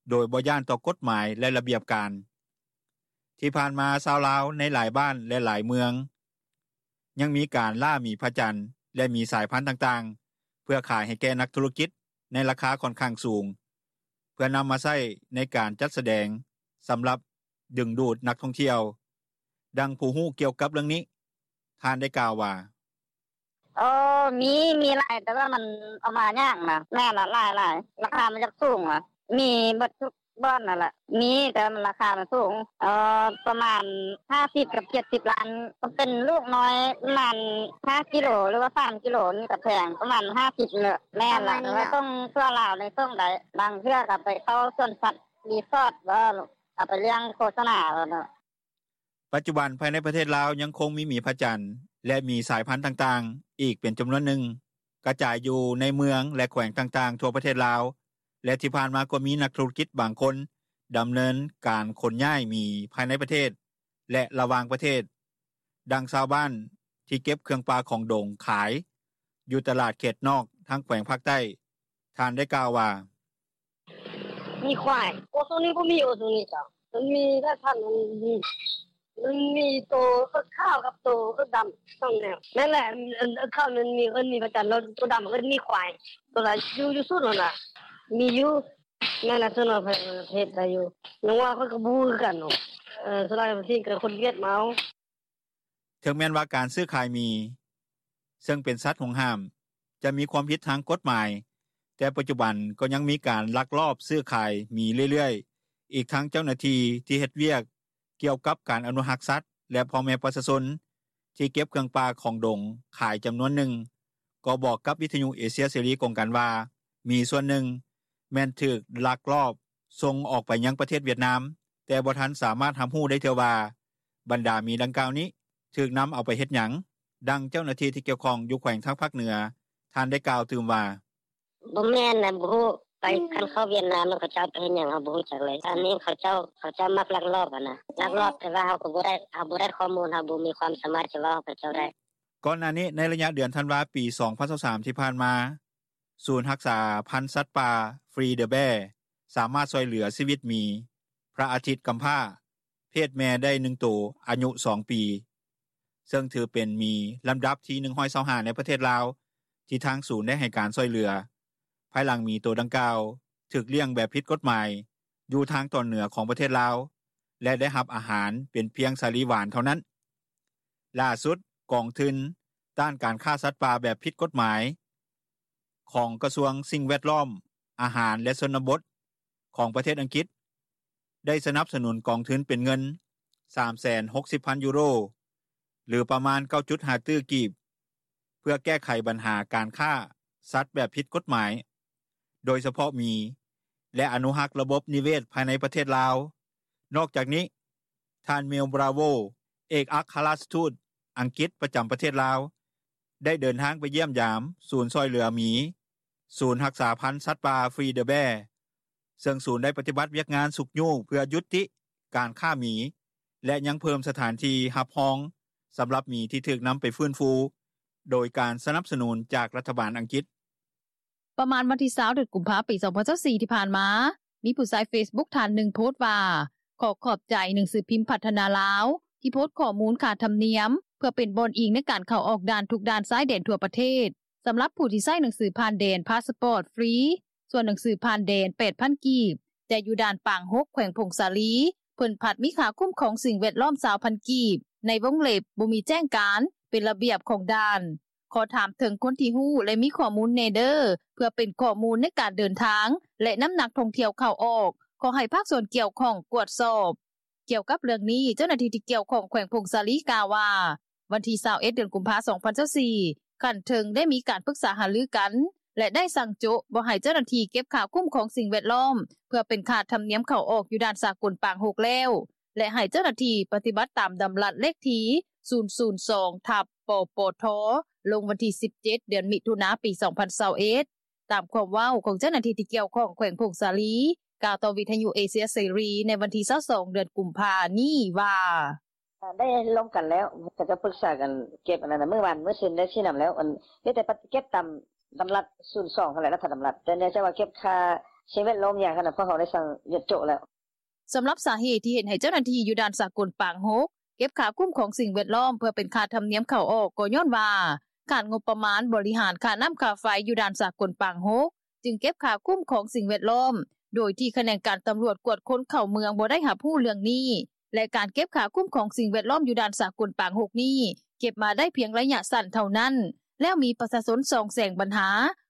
ໂດຍບໍ່ຢ້ານຕໍ່ກົດໝາຍ ແລະ ລະບຽບການ. ທີ່ຜ່ານມາ ຊາວລາວໃນຫຼາຍບ້ານ ແລະ ຫຼາຍເມືອງ ຍັງມີການລ່າໝີພະຈັນ ແລະ ໝີສາຍພັນຕ່າງໆ ເພື່ອຂາຍໃຫ້ແກ່ນັກທຸລະກິດ ໃນລາຄາຂ້ອນຂ້າງສູງ ເພື່ອນຳມາໃຊ້ໃນການຈັດສະແດງ ສຳລັບດຶງດູດນັກທ່ອງທ່ຽວ. ດັ່ງຜູ້ຮູ້ກ່ຽວກັບເລື່ອງນີ້ ທ່ານໄດ້ກ່າວວ່າ: ເອີ ມີ ມີຫຼາຍ ແຕ່ວ່າມັນເອົາມາຍາກນະ ແມ່ນລະ ຫຼາຍໆ ລາຄາມັນຢາກສູງນະ ມີເບິດທຸກບ່ອນຫັ້ນແຫຼະ ມີ ແຕ່ວ່າລາຄາມັນສູງ ເອີ ປະມານຫ້າສິບກັບເຈັດສິບລ້ານ ກະເປັນລູກນ້ອຍ ປະມານຫ້າກິໂລ ຫຼືວ່າສາມກິໂລນີ້ກະແພງ ປະມານຫ້າສິບນີ້ແຫຼະ ແມ່ນລະ ແຕ່ວ່າສົ່ງທົ່ວລາວນີ້ສົ່ງໄດ້ ບາງເທື່ອກະໄປເຂົ້າສວນສັດ ຣີສອດ ເອົາໄປລ້ຽງໂຄສະນາ. ປັດຈຸບັນ ພາຍໃນປະເທດລາວ ຍັງຄົງມີໝີພະຈັນ ແລະ ໝີສາຍພັນຕ່າງໆ ອີກເປັນຈຳນວນໜຶ່ງ ກະຈາຍຢູ່ໃນເມືອງ ແລະ ແຂວງຕ່າງໆ ທົ່ວປະເທດລາວ ແລະ ທີ່ຜ່ານມາກໍມີນັກທຸລະກິດບາງຄົນ ດຳເນີນການຂົນຍ້າຍໝີພາຍໃນປະເທດ ແລະ ລະຫວ່າງປະເທດ. ດັ່ງຊາວບ້ານທີ່ເກັບເຄື່ອງປ່າຂອງດົງຂາຍ ຢູ່ຕະຫຼາດເຂດນອກ ທາງແຂວງພາກໃຕ້ ທ່ານໄດ້ກ່າວວ່າ: ມີຄວາຍ ໂອ ຊ່ວງນີ້ບໍ່ມີ ໂອ ຊ່ວງນີ້ເຈົ້າ ມັນມີແຕ່ພັນ ມັນມີໂຕເອິກຂາວກັບໂຕເອິກດຳ ສອງແນວ ແມ່ນແຫຼະ ເອິກຂາວມັນມີ ເອີ້ນໝີພະຈັນ ໂຕດຳເອີ້ນໝີຄວາຍ ໂຕລະຢູ່ ຢູ່ສູນຫັ້ນນະ ມີຢູ່ ແມ່ນລະ ສ່ວນຫຼາຍປະເທດໄດ້ຢູ່ ຍັງວ່າຂ້ອຍກະບໍ່ຮູ້ຄືກັນເນາະ ສ່ວນຫຼາຍປະເທດກະຄົນຫວຽດມາເອົາ. ເຖິງແມ່ນວ່າການຊື້ຂາຍໝີ ເຊິ່ງເປັນສັດຫວງຫ້າມ ຈະມີຄວາມຜິດທາງກົດໝາຍ ແຕ່ປັດຈຸບັນກໍຍັງມີການລັກລອບຊື້ຂາຍໝີເລື້ອຍໆ ອີກທັງເຈົ້າໜ້າທີ່ ທີ່ເຮັດວຽກກ່ຽວກັບການອະນຸຮັກສັດ ແລະ ພໍ່ແມ່ປະຊາຊົນ ທີ່ເກັບເຄື່ອງປ່າຂອງດົງຂາຍຈຳນວນໜຶ່ງ ກໍບອກກັບວິທຍຸເອເຊຍເສລີກົງກັນວ່າ ໝີສ່ວນໜຶ່ງ ແມ່ນຖືກລັກລອບສົ່ງອອກໄປຍັງປະເທດຫວຽດນາມ ແຕ່ບໍ່ທັນສາມາດຮັບຮູ້ໄດ້ເທື່ອວ່າ ບັນດາໝີດັ່ງກ່າວນີ້ ຖືກນຳເອົາໄປເຮັດຫຍັງ. ດັ່ງເຈົ້າໜ້າທີ່ທີ່ກ່ຽວຂ້ອງຢູ່ແຂວງທາງພາກເໜືອ ທ່ານໄດ້ກ່າວຕື່ມວ່າ: ບໍ່ແມ່ນນະ ບໍ່ຮູ້ ຄັນເຂົ້າຫວຽດນາມແລ້ວ ເຂົາເຈົ້າເອົາໄປເຮັດຫຍັງ ເຮົາບໍ່ຮູ້ຈັກເລີຍ ອັນນີ້ເຂົາເຈົ້າ ເຂົາເຈົ້າມັກລັກລອບຫັ້ນນະ ລັກລອບ ແຕ່ວ່າເຮົາກະບໍ່ໄດ້ ເຮົາບໍ່ໄດ້ຂໍ້ມູນ ເຮົາບໍ່ມີຄວາມສາມາດຈະເວົ້າໃຫ້ເຂົາເຈົ້າໄດ້. ກ່ອນໜ້ານີ້ ໃນໄລຍະເດືອນທັນວາ ປີສອງພັນຊາວສາມ ທີ່ຜ່ານມາ ສູນຮັກສາພັນສັດປ່າ Free the Bear ສາມາດຊ່ວຍເຫຼືອຊີວິດໝີ ພະອາທິດກຳພ້າ ເພດແມ່ໄດ້ໜຶ່ງໂຕ ອາຍຸສອງປີ ເຊິ່ງຖືເປັນໝີລຳດັບທີໜຶ່ງຮ້ອຍຊາວຫ້າ ໃນປະເທດລາວ ທີ່ທາງສູນໄດ້ໃຫ້ການຊ່ວຍເຫຼືອ ພາຍຫຼັງໝີໂຕດັ່ງກ່າວ ຖືກລ້ຽງແບບຜິດກົດໝາຍ ຢູ່ທາງຕອນເໜືອຂອງປະເທດລາວ ແລະ ໄດ້ຮັບອາຫານເປັນພຽງສາລີຫວານເທົ່ານັ້ນ. ຫຼ້າສຸດ ກອງທຶນຕ້ານການຄ້າສັດປ່າແບບຜິດກົດໝາຍ ຂອງກະຊວງສິ່ງແວດລ້ອມ, ອາຫານ ແລະ ຊົນນະບົດ ຂອງປະເທດອັງກິດ ໄດ້ສະໜັບສະໜູນກອງທຶນເປັນເງິນ ສາມແສນຫົກສິບພັນຢູໂຣ ຫຼືປະມານ 9.5 ຕື້ກີບ ເພື່ອແກ້ໄຂບັນຫາການຄ້າສັດແບບຜິດກົດໝາຍ ໂດຍສະເພາະໝີ ແລະ ອະນຸຮັກລະບົບນິເວດພາຍໃນປະເທດລາວ. ນອກຈາກນີ້, ທ່ານ Mel Bravo ເອກອັກຄະລັດທູດອັງກິດປະຈຳປະເທດລາວ ໄດ້ເດີນທາງໄປຢ້ຽມຢາມສູນຊ່ອຍເຫຼືອໝີ, ສູນຮັກສາພັນສັດປ່າ Free the Bear ເຊິ່ງສູນໄດ້ປະຕິບັດວຽກງານຊຸກຍູ້ເພື່ອຢຸດຕິການຄ້າໝີ ແລະ ຍັງເພີ່ມສະຖານທີ່ຮັບຮອງສຳລັບໝີທີ່ຖືກນຳໄປຟື້ນຟູ ໂດຍການສະໜັບສະໜູນຈາກລັດຖະບານອັງກິດ. ປະມານວັນທີ 20 ເດືອນກຸມພາ ປີ 2024 ທີ່ຜ່ານມາ, ມີຜູ້ໃຊ້ເຟສບຸກທ່ານໜຶ່ງໂພສວ່າ ຂໍຂອບໃຈໜັງສືພິມພັດທະນາລາວ ທີ່ໂພສຂໍ້ມູນຄ່າທຳນຽມ ເພື່ອເປັນບ່ອນອີງໃນການເຂົ້າອອກດ່ານທຸກດ່ານຊາຍແດນທົ່ວປະເທດ ສຳລັບຜູ້ທີ່ໃຊ້ໜັງສືຜ່ານແດນ ພາສປອດ ຟຣີ ສ່ວນໜັງສືຜ່ານແດນ 8,000 ກີບ, ແຕ່ຢູ່ດ່ານປາງຫົກ ແຂວງຜົ້ງສາລີ ເພິ່ນພັດມີຄ່າຄຸ້ມຄອງສິ່ງແວດລ້ອມ 20,000 ກີບ ໃນວົງເລັບ ບໍ່ມີແຈ້ງການ ເປັນລະບຽບຂອງດ່ານ. ຂໍຖາມເຖິງຄົນທີ່ຮູ້ ແລະ ມີຂໍ້ມູນແນ່ເດີ ເພື່ອເປັນຂໍ້ມູນໃນການເດີນທາງ ແລະ ນ້ຳໜັກທ່ອງທ່ຽວເຂົ້າອອກ. ຂໍໃຫ້ພາກສ່ວນກ່ຽວຂ້ອງກວດສອບ. ກ່ຽວກັບເລື່ອງນີ້, ເຈົ້າໜ້າທີ່ທີ່ກ່ຽວຂ້ອງແຂວງຜົ້ງສາລີກ່າວວ່າ ວັນທີ 21 ເດືອນກຸມພາ 2024, ຂັ້ນເທິງໄດ້ມີການປຶກສາຫາລືກັນ ແລະ ໄດ້ສັ່ງໂຈະບໍ່ໃຫ້ເຈົ້າໜ້າທີ່ເກັບຄ່າຄຸ້ມຄອງສິ່ງແວດລ້ອມ ເພື່ອເປັນຄ່າທຳນຽມເຂົ້າອອກຢູ່ດ່ານສາກົນປາງຫົກແລ້ວ ແລະ ໃຫ້ເຈົ້າໜ້າທີ່ປະຕິບັດຕາມດຳລັດເລກທີ 002/ປປທ ລົງວັນທີ 17 ເດືອນມິຖຸນາ ປີ 2021. ຕາມຄວາມເວົ້າຂອງເຈົ້າໜ້າທີ່ທີ່ກ່ຽວຂ້ອງແຂວງຜົ້ງສາລີ ກ່າວຕໍ່ວິທຍຸເອເຊຍເສລີ ໃນວັນທີ 22 ເດືອນກຸມພານີ້ວ່າ: ໄດ້ລົມກັນແລ້ວ, ເຂົາເຈົ້າປຶກສາກັນເກັບອັນນັ້ນນະ, ມື້ວານມື້ຊືນໄດ້ຊີ້ນຳແລ້ວ, ອັນ ມີແຕ່ປະຕິບັດເກັບຕາມດຳລັດ 002 ຫັ້ນແຫຼະ, ລັດຖະດຳລັດ, ແຕ່ເນື່ອງຈາກວ່າເກັບຄ່າສິ່ງແວດລ້ອມຫຍັງຫັ້ນນະ, ພວກເຮົາໄດ້ສັ່ງຢຸດໂຈະແລ້ວ. ສຳລັບສາເຫດທີ່ເຮັດໃຫ້ເຈົ້າໜ້າທີ່ຢູ່ດ່ານສາກົນປາງຫົກ ເກັບຄ່າຄຸ້ມຄອງສິ່ງແວດລ້ອມ ເພື່ອເປັນຄ່າທຳນຽມເຂົ້າອອກ ກໍຍ້ອນວ່າຂາດງົບປະມານບໍລິຫານຄ່ານ້ຳຄ່າໄຟຢູ່ດ່ານສາກົນປາງຫົກ ຈຶ່ງເກັບຄ່າຄຸ້ມຄອງສິ່ງແວດລ້ອມ ໂດຍທີ່ຂະແໜງການຕຳຫຼວດກວດຄົນເຂົ້າເມືອງບໍ່ໄດ້ຮັບຮູ້ເລື່ອງນີ້ ແລະ ການເກັບຄ່າຄຸ້ມຄອງສິ່ງແວດລ້ອມຢູ່ດ່ານສາກົນປາງຫົກນີ້ ເກັບມາໄດ້ພຽງໄລຍະສັ້ນເທົ່ານັ້ນ ແລ້ວມີປະຊາຊົນສ່ອງແສງບັນຫາ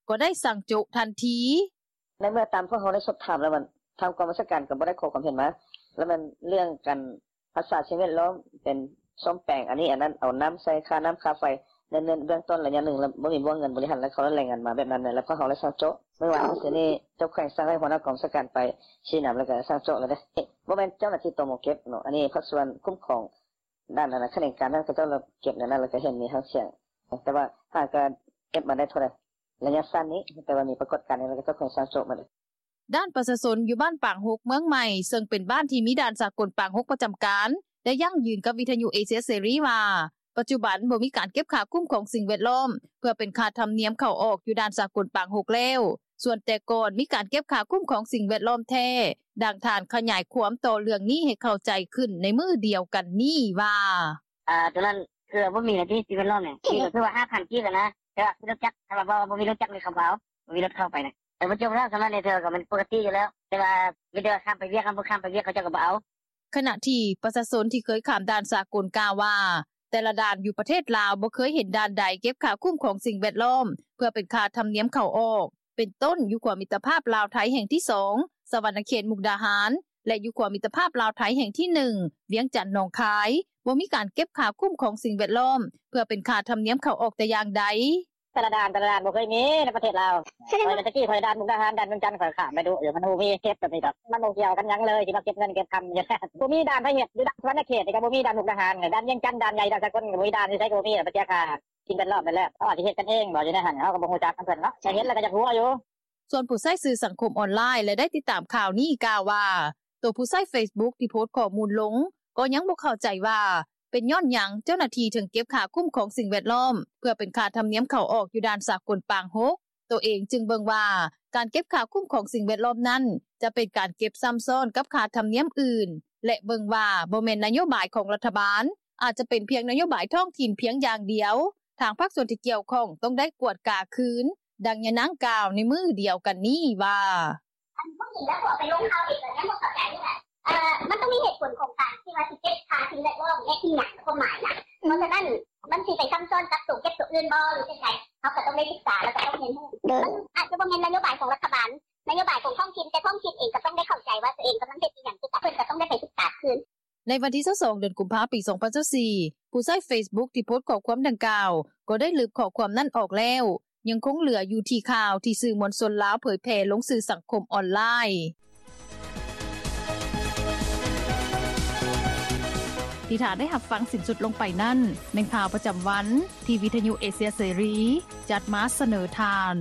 ກໍໄດ້ສັ່ງໂຈະທັນທີ. ໃນເມື່ອຕາມພວກເຮົາໄດ້ສອບຖາມແລ້ວ, ມັນ ທາງກອງບັນຊາການກໍບໍ່ໄດ້ຂໍຄວາມເຫັນມາ, ແລ້ວມັນເລື່ອງການຮັກສາສິ່ງແວດລ້ອມ ເປັນສ້ອມແປງອັນນີ້ອັນນັ້ນ, ເອົານ້ຳໃສ່ຄ່ານ້ຳຄ່າໄຟ ໃນເບື້ອງຕົ້ນໄລຍະໜຶ່ງ ແລ້ວບໍ່ມີບົວເງິນບໍລິຫານ ແລ້ວເຂົາລາຍງານມາແບບນັ້ນ ແລ້ວພວກເຮົາໄດ້ສັ່ງໂຈະ. ມື້ວານນີ້ ເຈົ້າແຂວງສັ່ງໃຫ້ຫົວໜ້າກອງບັນຊາການໄປຊີ້ນຳ ແລ້ວກໍສັ່ງໂຈະແລ້ວເດ້. ບໍ່ແມ່ນເຈົ້າໜ້າທີ່ ຕມ ເກັບເນາະ, ອັນນີ້ພາກສ່ວນຄຸ້ມຄອງ ດ້ານນັ້ນນະ ຂະແໜງການນັ້ນ ເຂົາເຈົ້າເກັບແນວນັ້ນ ແລ້ວກໍເຫັນມີຫາງສຽງ, ແຕ່ວ່າຫາກະເກັບມາໄດ້ເທົ່າໃດ ໄລຍະສັ້ນນີ້, ແຕ່ວ່າມີປາກົດການນີ້ ແລ້ວກໍເຈົ້າຂອງສັ່ງໂຈະມາເລີຍ. ດ້ານປະຊາຊົນຢູ່ບ້ານປາງຫົກເມືອງໃໝ່ ເຊິ່ງເປັນບ້ານທີ່ມີດ່ານສາກົນປາງຫົກປະຈຳການ ໄດ້ຢັ້ງຢືນກັບວິທຍຸເອເຊຍເສລີວ່າ ປັດຈຸບັນບໍ່ມີການເກັບຄ່າຄຸ້ມຄອງສິ່ງແວດລ້ອມ ເພື່ອເປັນຄ່າທຳນຽມເຂົ້າອອກຢູ່ດ່ານສາກົນປາງຫົກແລ້ວ. ສ່ວນແຕ່ກ່ອນມີການເກັບຄ່າຄຸ້ມຄອງສິ່ງແວດລ້ອມແທ້, ດັ່ງທ່ານຂະຫຍາຍຄວາມຕໍ່ເລື່ອງນີ້ໃຫ້ເຂົ້າໃຈຂຶ້ນໃນມື້ດຽວກັນນີ້ວ່າ: ອາ ໂຕນັ້ນຄືບໍ່ມີແລ້ວຕິ ສິ່ງແວດລ້ອມນີ້ ມີກໍຄືວ່າ ຫ້າພັນ ກີບນະ, ແຕ່ວ່າລົດຈັກ ຖ້າວ່າບໍ່ ບໍ່ມີລົດຈັກນີ້ ເຂົາບໍ່ເອົາ, ບໍ່ມີລົດເຂົ້າໄປນະ. ເອີ ບໍ່ຈົບແລ້ວ, ສ່ຳນັ້ນນີ້ເທື່ອກໍແມ່ນປົກກະຕິຢູ່ແລ້ວ, ແຕ່ວ່າມີແຕ່ວ່າຂ້າມໄປວຽກ, ຄັນບໍ່ຂ້າມໄປວຽກ ເຂົາເຈົ້າກໍບໍ່ເອົາ. ຂະນະທີ່ປະຊາຊົນທີ່ເຄີຍຂ້າມດ່ານສາກົນກ່າວວ່າ ແຕ່ລະດ່ານຢູ່ປະເທດລາວບໍ່ເຄີຍເຫັນດ່ານໃດເກັບຄ່າຄຸ້ມຄອງສິ່ງແວດລ້ອມ ເພື່ອເປັນຄ່າທຳນຽມເຂົ້າອອກ, ເປັນຕົ້ນ ຢູ່ຂົວມິດຕະພາບລາວ-ໄທແຫ່ງທີສອງ ສະຫວັນນະເຂດ ມຸກດາຫານ ແລະ ຢູ່ຂົວມິດຕະພາບລາວ-ໄທແຫ່ງທີໜຶ່ງ ວຽງຈັນ ໜອງຄາຍ ບໍ່ມີການເກັບຄ່າຄຸ້ມຄອງສິ່ງແວດລ້ອມ ເພື່ອເປັນຄ່າທຳນຽມເຂົ້າອອກແຕ່ຢ່າງໃດ. ແຕ່ລະດ່ານ ແຕ່ລະດ່ານບໍ່ເຄີຍມີໃນປະເທດລາວ. ຂ້ອຍແຕ່ກີ້ຂ້ອຍດ່ານມຸກດາຫານ ດ່ານວຽງຈັນ ຂ້ອຍຂ້າມໄປດຸຢູ່, ມັນບໍ່ມີເກັບແບບນີ້ດອກ, ມັນບໍ່ກ່ຽວກັນຫຍັງເລີຍ ທີ່ມາເກັບເງິນເກັບຄຳຢູ່. ບໍ່ມີດ່ານໃຜເຮັດ, ຢູ່ດ່ານສະຫວັນນະເຂດນີ້ກໍບໍ່ມີ, ດ່ານມຸກດາຫານ, ດ່ານວຽງຈັນ, ດ່ານໃຫຍ່, ດ່ານສາກົນກໍບໍ່ມີ, ດ່ານຢູ່ໃສກໍບໍ່ມີ, ໄປເສຍຄ່າສິ່ງແວດລ້ອມນັ້ນແຫຼະ. ເຂົາອາດຊິເຮັດກັນເອງບໍ່ ຢູ່ໃນຫັ້ນ, ເຮົາກໍບໍ່ຮູ້ຈັກນຳເພິ່ນເນາະ, ແຕ່ເຫັນແລ້ວກໍຢາກຫົວຢູ່. ສ່ວນຜູ້ໃຊ້ສື່ສັງຄົມອອນລາຍ ແລະ ໄດ້ຕິດຕາມຂ່າວນີ້ກ່າວວ່າ ໂຕຜູ້ໃຊ້ເຟສບຸກທີ່ໂພສຂໍ້ມູນລົງ ກໍຍັງບໍ່ເຂົ້າໃຈວ່າ ເປັນຍ້ອນຫຍັງເຈົ້າໜ້າທີ່ເຖິງເກັບຄ່າຄຸ້ມຄອງສິ່ງແວດລ້ອມ ເພື່ອເປັນຄ່າທຳນຽມເຂົ້າອອກຢູ່ດ່ານສາກົນປາງຫົກ. ໂຕເອງຈຶ່ງເບິ່ງວ່າ ການເກັບຄ່າຄຸ້ມຄອງສິ່ງແວດລ້ອມນັ້ນ ຈະເປັນການເກັບຊ້ຳຊ້ອນກັບຄ່າທຳນຽມອື່ນ ແລະ ເບິ່ງວ່າບໍ່ແມ່ນນະໂຍບາຍຂອງລັດຖະບານ, ອາດຈະເປັນພຽງນະໂຍບາຍທ້ອງຖິ່ນພຽງຢ່າງດຽວ, ທາງພາກສ່ວນທີ່ກ່ຽວຂ້ອງຕ້ອງໄດ້ກວດກາຄືນ, ດັ່ງຍານາງກ່າວໃນມື້ດຽວກັນນີ້ວ່າ: ອັນຜູ້ຍິງແລ້ວພວກໄປລົງຂ່າວອີກກໍຍັງບໍ່ເຂົ້າໃຈນີ້ແຫຼະ. ເອີ ມັນຕ້ອງມີເຫດຜົນຂອງການທີ່ວ່າຊິເກັບຄ່າສິ່ງແວດລ້ອມແລະອີ່ຫຍັງ ຄວາມໝາຍນະ. ເພາະສະນັ້ນ ມັນຊິໄປຊ້ຳຊ້ອນກັບໂຕເກັບໂຕອື່ນບໍ່ ຫຼືຈັ່ງໃດ? ເຮົາກໍຕ້ອງໄດ້ສຶກສາ ແລ້ວກໍຕ້ອງຮຽນຮູ້. ມັນອາດຈະບໍ່ແມ່ນນະໂຍບາຍຂອງລັດຖະບານ, ນະໂຍບາຍຂອງທ້ອງຖິ່ນ, ແຕ່ທ້ອງຖິ່ນເອງກໍຕ້ອງໄດ້ເຂົ້າໃຈວ່າໂຕເອງກຳລັງເຮັດອີ່ຫຍັງຄືກັນ, ເພິ່ນກໍຕ້ອງໄດ້ໄປສຶກສາຄືນ. ໃນວັນທີ 22 ເດືອນກຸມພາ ປີ 2024, ຜູ້ໃຊ້ເຟສບຸກທີ່ໂພສຂໍ້ຄວາມດັ່ງກ່າວ ກໍໄດ້ລຶບຂໍ້ຄວາມນັ້ນອອກແລ້ວ. ຍັງຄົງເຫຼືອຢູ່ທີ່ຂ່າວທີ່ສື່ມວນຊົນລາວເຜີຍແຜ່ລົງສື່ສັງຄົມອອນລາຍ. ທີ່ທ່ານໄດ້ຮັບຟັງສິ້ນສຸດລົງໄປນັ້ນ ແມ່ນຂ່າວປະຈຳວັນ ທີ່ວິທຍຸເອເຊຍເສລີ ຈັດມາສະເໜີທ່ານ.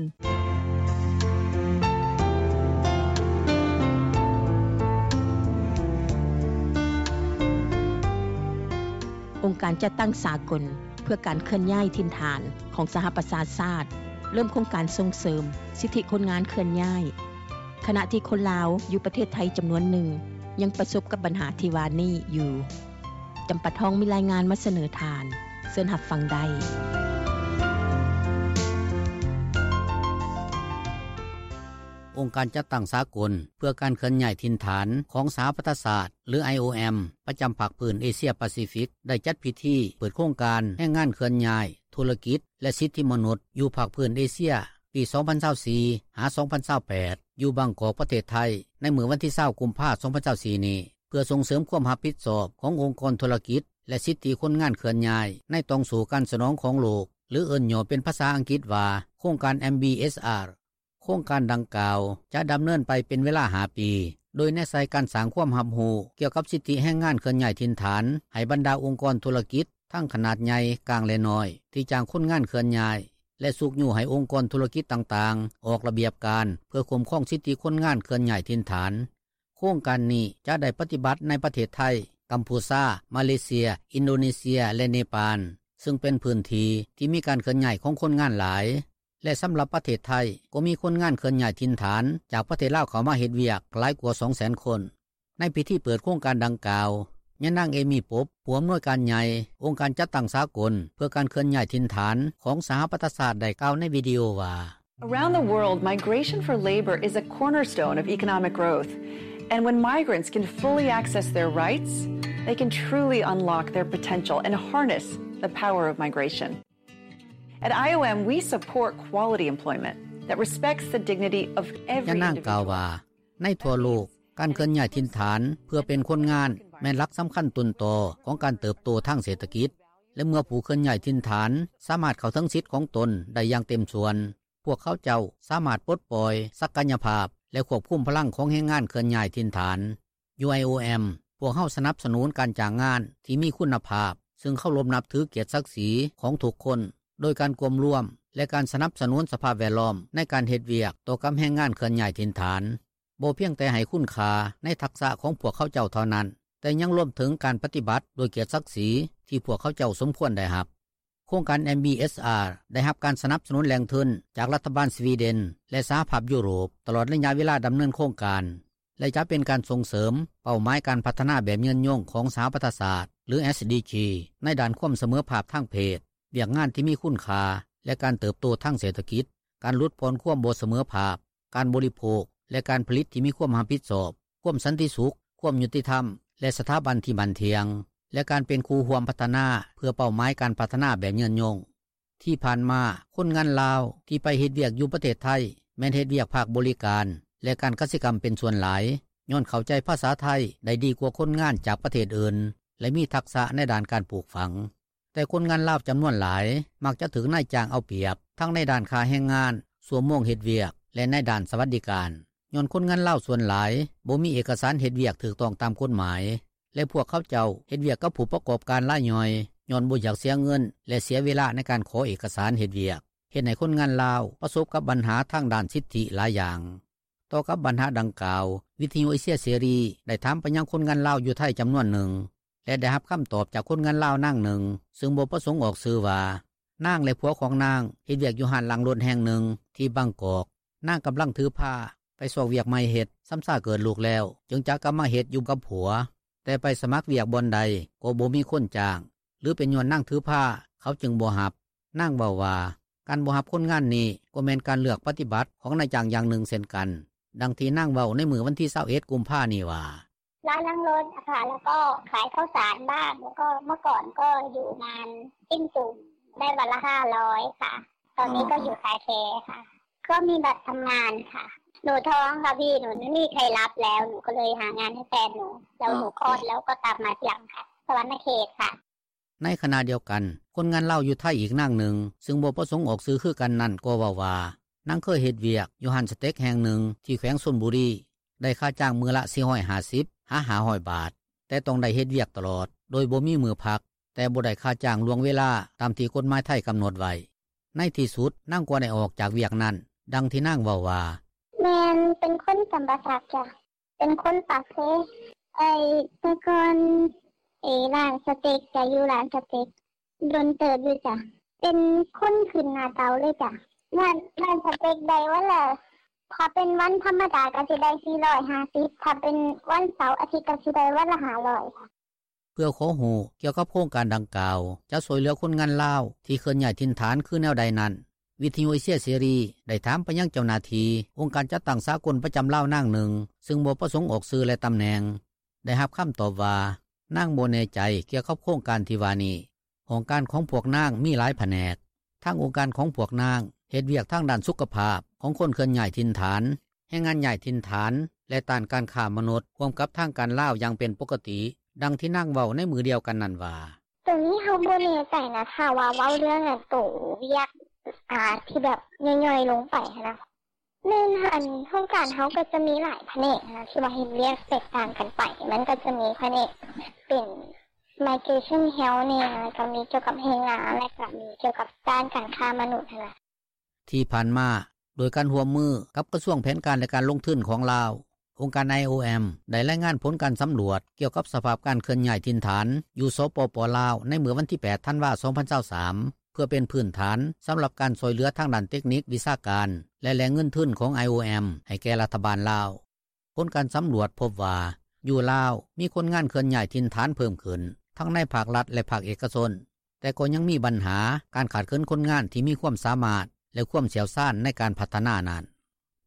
ອົງການຈັດຕັ້ງສາກົນເພື່ອການເຄື່ອນຍ້າຍຖິ່ນຖານຂອງສະຫະປະຊາຊາດ ເລີ່ມໂຄງການສົ່ງເສີມສິດທິຄົນງານເຄື່ອນຍ້າຍ, ຂະນະທີ່ຄົນລາວຢູ່ປະເທດໄທຈຳນວນໜຶ່ງ ຍັງປະສົບກັບບັນຫາທີ່ວ່ານີ້ຢູ່. ຈຳປາທອງມີລາຍງານມາສະເໜີທ່ານ, ເຊີນຮັບຟັງໄດ້. ອົງການຈັດຕັ້ງສາກົນເພື່ອການເຄື່ອນຍ້າຍຖິ່ນຖານຂອງສະຫະປະຊາຊາດ ຫຼື ໄອໂອເອັມ ປະຈຳພາກພື້ນເອເຊຍປາຊີຟິກ ໄດ້ຈັດພິທີເປີດໂຄງການແຮງງານເຄື່ອນຍ້າຍ, ທຸລະກິດ ແລະ ສິດທິມະນຸດ ຢູ່ພາກພື້ນເອເຊຍ ປີສອງພັນຊາວສີ່ ຫາ ສອງພັນຊາວແປດ ຢູ່ບາງກອກ ປະເທດໄທ ໃນມື້ວັນທີຊາວ ກຸມພາ ສອງພັນຊາວສີ່ນີ້ ເພື່ອສົ່ງເສີມຄວາມຮັບຜິດຊອບຂອງອົງກອນທຸລະກິດ ແລະ ສິດທິຄົນງານເຄື່ອນຍ້າຍ ໃນຕ່ອງໂສ້ການສະໜອງຂອງໂລກ ຫຼື ເອີ້ນຫຍໍ້ເປັນພາສາອັງກິດວ່າ ໂຄງການ ເອັມບີເອສອາ ໂຄງການດັ່ງກ່າວຈະດຳເນີນໄປເປັນເວລາຫ້າປີ ໂດຍແນໃສ່ການສ້າງຄວາມຮັບຮູ້ກ່ຽວກັບສິດທິແຮງງານເຄື່ອນຍ້າຍຖິ່ນຖານໃຫ້ບັນດາອົງກອນທຸລະກິດ ທັງຂະໜາດໃຫຍ່, ກາງ ແລະ ນ້ອຍ ທີ່ຈ້າງຄົນງານເຄື່ອນຍ້າຍ ແລະ ຊຸກຍູ້ໃຫ້ອົງກອນທຸລະກິດຕ່າງໆ ອອກລະບຽບການເພື່ອຄຸ້ມຄອງສິດທິຄົນງານເຄື່ອນຍ້າຍຖິ່ນຖານ. ໂຄງການນີ້ຈະໄດ້ປະຕິບັດໃນປະເທດໄທ, ກຳພູຊາ, ມາເລເຊຍ, ອິນໂດເນເຊຍ ແລະ ເນປານ, ເຊິ່ງເປັນພື້ນທີ່ທີ່ມີການເຄື່ອນຍ້າຍຂອງຄົນງານຫຼາຍ. ແລະ ສຳລັບປະເທດໄທ ກໍມີຄົນງານເຄື່ອນຍ້າຍຖິ່ນຖານຈາກປະເທດລາວເຂົ້າມາເຮັດວຽກຫຼາຍກວ່າສອງແສນຄົນ. ໃນພິທີເປີດໂຄງການດັ່ງກ່າວ, ຍານາງ ເອມີ ປົບ ຜູ້ອຳນວຍການໃຫຍ່ອົງການຈັດຕັ້ງສາກົນເພື່ອການເຄື່ອນຍ້າຍຖິ່ນຖານຂອງສະຫະປະຊາຊາດ ໄດ້ກ່າວໃນວິດີໂອວ່າ: Around the world, migration for labor is a cornerstone of economic growth. And when migrants can fully access their rights, they can truly unlock their potential and harness the power of migration. At I O M, we support quality employment that respects the dignity of every individual. ຍານາງກ່າວວ່າ ໃນທົ່ວໂລກ, ການເຄື່ອນຍ້າຍຖິ່ນຖານເພື່ອເປັນຄົນງານ ແມ່ນຫຼັກສຳຄັນຕົ້ນຕໍຂອງການເຕີບໂຕທາງເສດຖະກິດ ແລະ ເມື່ອຜູ້ເຄື່ອນຍ້າຍຖິ່ນຖານສາມາດເຂົ້າເຖິງສິດຂອງຕົນໄດ້ຢ່າງເຕັມສ່ວນ, ພວກເຂົາເຈົ້າສາມາດປົດປ່ອຍສັກກະຍະພາບ ແລະ ຄວບຄຸມພະລັງຂອງແຮງງານເຄື່ອນຍ້າຍຖິ່ນຖານ. ຢູ່ ໄອໂອເອັມ ພວກເຮົາສະໜັບສະໜູນການຈ້າງງານທີ່ມີຄຸນນະພາບ ເຊິ່ງເຄົາລົບນັບຖືກຽດສັກສີຂອງທຸກຄົນ ໂດຍການກວມລວມ ແລະ ການສະໜັບສະໜູນສະພາບແວດລ້ອມໃນການເຮັດວຽກຕໍ່ກັບແຮງງານເຄື່ອນຍ້າຍຖິ່ນຖານ, ບໍ່ພຽງແຕ່ໃຫ້ຄຸນຄ່າໃນທັກສະຂອງພວກເຂົາເຈົ້າເທົ່ານັ້ນ, ແຕ່ຍັງລວມເຖິງການປະຕິບັດດ້ວຍກຽດສັກສີທີ່ພວກເຂົາເຈົ້າສົມຄວນໄດ້ຮັບ. ໂຄງການ ເອັມບີເອສອາ ໄດ້ຮັບການສະໜັບສະໜູນແຫຼ່ງທຶນຈາກລັດຖະບານສະວີເດນ ແລະ ສະຫະພາບຢູໂຣບ ຕະຫຼອດໄລຍະເວລາດຳເນີນໂຄງການ ແລະ ຈະເປັນການສົ່ງເສີມເປົ້າໝາຍການພັດທະນາແບບຍືນຍົງຂອງສະຫະປະຊາຊາດ ຫຼື ເອສດີຈີ ໃນດ້ານຄວາມສະເໝີພາບທາງເພດ, ວຽກງານທີ່ມີຄຸນຄ່າ ແລະ ການເຕີບໂຕທາງເສດຖະກິດ, ການຫຼຸດຜ່ອນຄວາມບໍ່ສະເໝີພາບ, ການບໍລິໂພກ ແລະ ການຜະລິດທີ່ມີຄວາມຮັບຜິດຊອບ, ຄວາມສັນຕິສຸກ, ຄວາມຍຸຕິທຳ ແລະ ສະຖາບັນທີ່ໝັ້ນທ່ຽງ ແລະ ການເປັນຄູ່ຮ່ວມພັດທະນາເພື່ອເປົ້າໝາຍການພັດທະນາແບບຍືນຍົງ. ທີ່ຜ່ານມາ, ຄົນງານລາວທີ່ໄປເຮັດວຽກຢູ່ປະເທດໄທ ແມ່ນເຮັດວຽກພາກບໍລິການ ແລະ ການກະສິກຳເປັນສ່ວນຫຼາຍ, ຍ້ອນເຂົ້າໃຈພາສາໄທໄດ້ດີກວ່າຄົນງານຈາກປະເທດອື່ນ ແລະ ມີທັກສະໃນດ້ານການປູກຝັງ. ແຕ່ຄົນງານລາວຈຳນວນຫຼາຍມັກຈະຖືກນາຍຈ້າງເອົາປຽບ ທັງໃນດ້ານຄ່າແຮງງານ, ຊົ່ວໂມງເຮັດວຽກ ແລະ ໃນດ້ານສະຫວັດດີການ, ຍ້ອນຄົນງານລາວສ່ວນຫຼາຍບໍ່ມີເອກະສານເຮັດວຽກຖືກຕ້ອງຕາມກົດໝາຍ ແລະ ພວກເຂົາເຈົ້າເຮັດວຽກກັບຜູ້ປະກອບການລາຍຍ່ອຍ ຍ້ອນບໍ່ຢາກເສຍເງິນ ແລະ ເສຍເວລາໃນການຂໍເອກະສານເຮັດວຽກ, ເຮັດໃຫ້ຄົນງານລາວປະສົບກັບບັນຫາທາງດ້ານສິດທິຫຼາຍຢ່າງ. ຕໍ່ກັບບັນຫາດັ່ງກ່າວ, ວິທຍຸເອເຊຍເສລີໄດ້ຖາມໄປຍັງຄົນງານລາວຢູ່ໄທຈຳນວນໜຶ່ງ ແລະ ໄດ້ຮັບຄຳຕອບຈາກຄົນງານລາວນາງໜຶ່ງ ເຊິ່ງບໍ່ປະສົງອອກຊື່ວ່າ ນາງ ແລະ ຜົວຂອງນາງເຮັດວຽກຢູ່ຮ້ານລ້າງລົດແຫ່ງໜຶ່ງທີ່ບາງກອກ. ນາງກຳລັງຖືພາໄປຊອກວຽກໃໝ່ເຮັດ, ຊຳຊາເກີດລູກແລ້ວ ຈຶ່ງຈະກັບມາເຮັດຢູ່ກັບຜົວ, ແຕ່ໄປສະໝັກວຽກບ່ອນໃດກໍບໍ່ມີຄົນຈ້າງ ຫຼື ເປັນຍ້ອນນາງຖືພາ ເຂົາຈຶ່ງບໍ່ຮັບ. ນາງເວົ້າວ່າ ການບໍ່ຮັບຄົນງານນີ້ກໍແມ່ນການເລືອກປະຕິບັດຂອງນາຍຈ້າງຢ່າງໜຶ່ງເຊັ່ນກັນ, ດັ່ງທີ່ນາງເວົ້າໃນມື້ວັນທີຊາວເອັດ ກຸມພານີ້ວ່າ: ຮ້านล้างรถอะค่ะ แล้วก็ขายข้าวสารบ้าง แล้วก็เมื่อก่อนก็อยู่งานปิ้งจุ่ม ได้วันละห้าร้อยค่ะ ตอนนี้ก็อยู่คาแคร์ค่ะ ก็มีบัตรทำงานค่ะ หนูท้องค่ะพี่ หนูไม่มีใครรับแล้ว หนูก็เลยหางานให้แฟนหนู แล้วหนูคลอดแล้วก็ตามมาทีหลังค่ะ สะหวันนะเขตค่ะ ໃນຂະນະດຽວກັນ, ຄົນງານລາວຢູ່ໄທອີກນາງໜຶ່ງ ຊຶ່ງບໍ່ປະສົງອອກຊື່ຄືກັນນັ້ນ ກໍເວົ້າວ່າ ນາງເຄີຍເຮັດວຽກຢູ່ຮ້ານສະເຕັກແຫ່ງໜຶ່ງທີ່ແຂວງຊົນບຸຣີ ໄດ້ຄ່າຈ້າງມື້ລະ ສີ່ຮ້ອຍຫ້າສິບ ຫາ ຫ້າຮ້ອຍບາດ, ແຕ່ຕ້ອງໄດ້ເຮັດວຽກຕະຫຼອດ ໂດຍບໍ່ມີມື້ພັກ, ແຕ່ບໍ່ໄດ້ຄ່າຈ້າງລ່ວງເວລາຕາມທີ່ກົດໝາຍໄທກຳນົດໄວ້. ໃນທີ່ສຸດ, ນາງກໍໄດ້ອອກຈາກວຽກນັ້ນ, ດັ່ງທີ່ນາງເວົ້າວ່າ: ແມ່ນ ເປັນຄົນຈຳປາສັກຈ້າ, ເປັນຄົນປາກເຊ. ເອີ ແຕ່ກ່ອນ ເອີ ຮ້ານສະເຕັກ ກະຢູ່ຮ້ານສະເຕັກດົນເຕີບຢູ່ຈ້າ, ເປັນຄົນຂຶ້ນໜ້າເຕົາເລີຍຈ້າ. ຮ້ານ ຮ້ານສະເຕັກໄດ້ວັນລະ ຖ້າເປັນວັນທຳມະດາກະຊິໄດ້ ສີ່ຮ້ອຍຫ້າສິບ, ຖ້າເປັນວັນເສົາອາທິດກະຊິໄດ້ວັນລະ ຫ້າຮ້ອຍ. ເພື່ອຂໍຮູ້ກ່ຽວກັບໂຄງການດັ່ງກ່າວ ຈະຊ່ວຍເຫຼືອຄົນງານລາວທີ່ເຄື່ອນຍ້າຍຖິ່ນຖານຄືແນວໃດນັ້ນ, ວິທຍຸເອເຊຍເສລີໄດ້ຖາມໄປຍັງເຈົ້າໜ້າທີ່ອົງການຈັດຕັ້ງສາກົນປະຈຳລາວນາງໜຶ່ງ ຊຶ່ງບໍ່ປະສົງອອກຊື່ ແລະ ຕຳແໜ່ງ, ໄດ້ຮັບຄຳຕອບວ່າ ນາງບໍ່ແນ່ໃຈກ່ຽວກັບໂຄງການທີ່ວ່ານີ້. ຫ້ອງການຂອງພວກນາງມີຫຼາຍພະແນກ. ທາງອົງການຂອງພວກນາງເຮັດວຽກທາງດ້ານສຸຂະພາບຂອງຄົນເຄື່ອນຍ້າຍຖິ່ນຖານ, ແຮງງານຍ້າຍຖິ່ນຖານ ແລະ ຕ້ານການຄ້າມະນຸດ ຮ່ວມກັບທາງການລາວຢ່າງເປັນປົກກະຕິ, ດັ່ງທີ່ນາງເວົ້າໃນມື້ດຽວກັນນັ້ນວ່າ: ໂຕນີ້ເຮົາບໍ່ແນ່ໃຈນະ, ຖ້າວ່າເວົ້າເລື່ອງອັນໂຕວຽກ ອາ ທີ່ແບບຍ່ອຍໆລົງໄປຫັ້ນນະ, ແມ່ນ ອັນຫ້ອງການເຮົາກໍຈະມີຫຼາຍພະແນກນະ ທີ່ວ່າເຮັດວຽກແຕກຕ່າງກັນໄປ. ມັນກໍຈະມີພະແນກເປັນ migration health ແດ່, ແລ້ວກໍມີກ່ຽວກັບແຮງງານ, ແລ້ວກໍມີກ່ຽວກັບດ້ານການຄ້າມະນຸດຫັ້ນນະ. ທີ່ຜ່ານມາ, ໂດຍການຮ່ວມມືກັບກະຊວງແຜນການ ແລະ ການລົງທຶນຂອງລາວ, ອົງການ ໄອໂອເອັມ ໄດ້ລາຍງານຜົນການສຳຫຼວດກ່ຽວກັບສະພາບການເຄື່ອນຍ້າຍຖິ່ນຖານຢູ່ ສປປ ລາວ ໃນມື້ວັນທີ ແປດ ທັນວາ ສອງພັນຊາວສາມ ເພື່ອເປັນພື້ນຖານສຳລັບການຊ່ວຍເຫຼືອທາງດ້ານເຕັກນິກ, ວິຊາການ ແລະ ແຫຼ່ງເງິນທຶນຂອງ ໄອໂອເອັມ ໃຫ້ແກ່ລັດຖະບານລາວ. ຜົນການສຳຫຼວດພົບວ່າ ຢູ່ລາວມີຄົນງານເຄື່ອນຍ້າຍຖິ່ນຖານເພີ່ມຂຶ້ນ ທັງໃນພາກລັດ ແລະ ພາກເອກະຊົນ, ແຕ່ກໍຍັງມີບັນຫາການຂາດເຂີນຄົນງານທີ່ມີຄວາມສາມາດ ແລະ ຄວາມຊ່ຽວຊານໃນການພັດທະນານັ້ນ.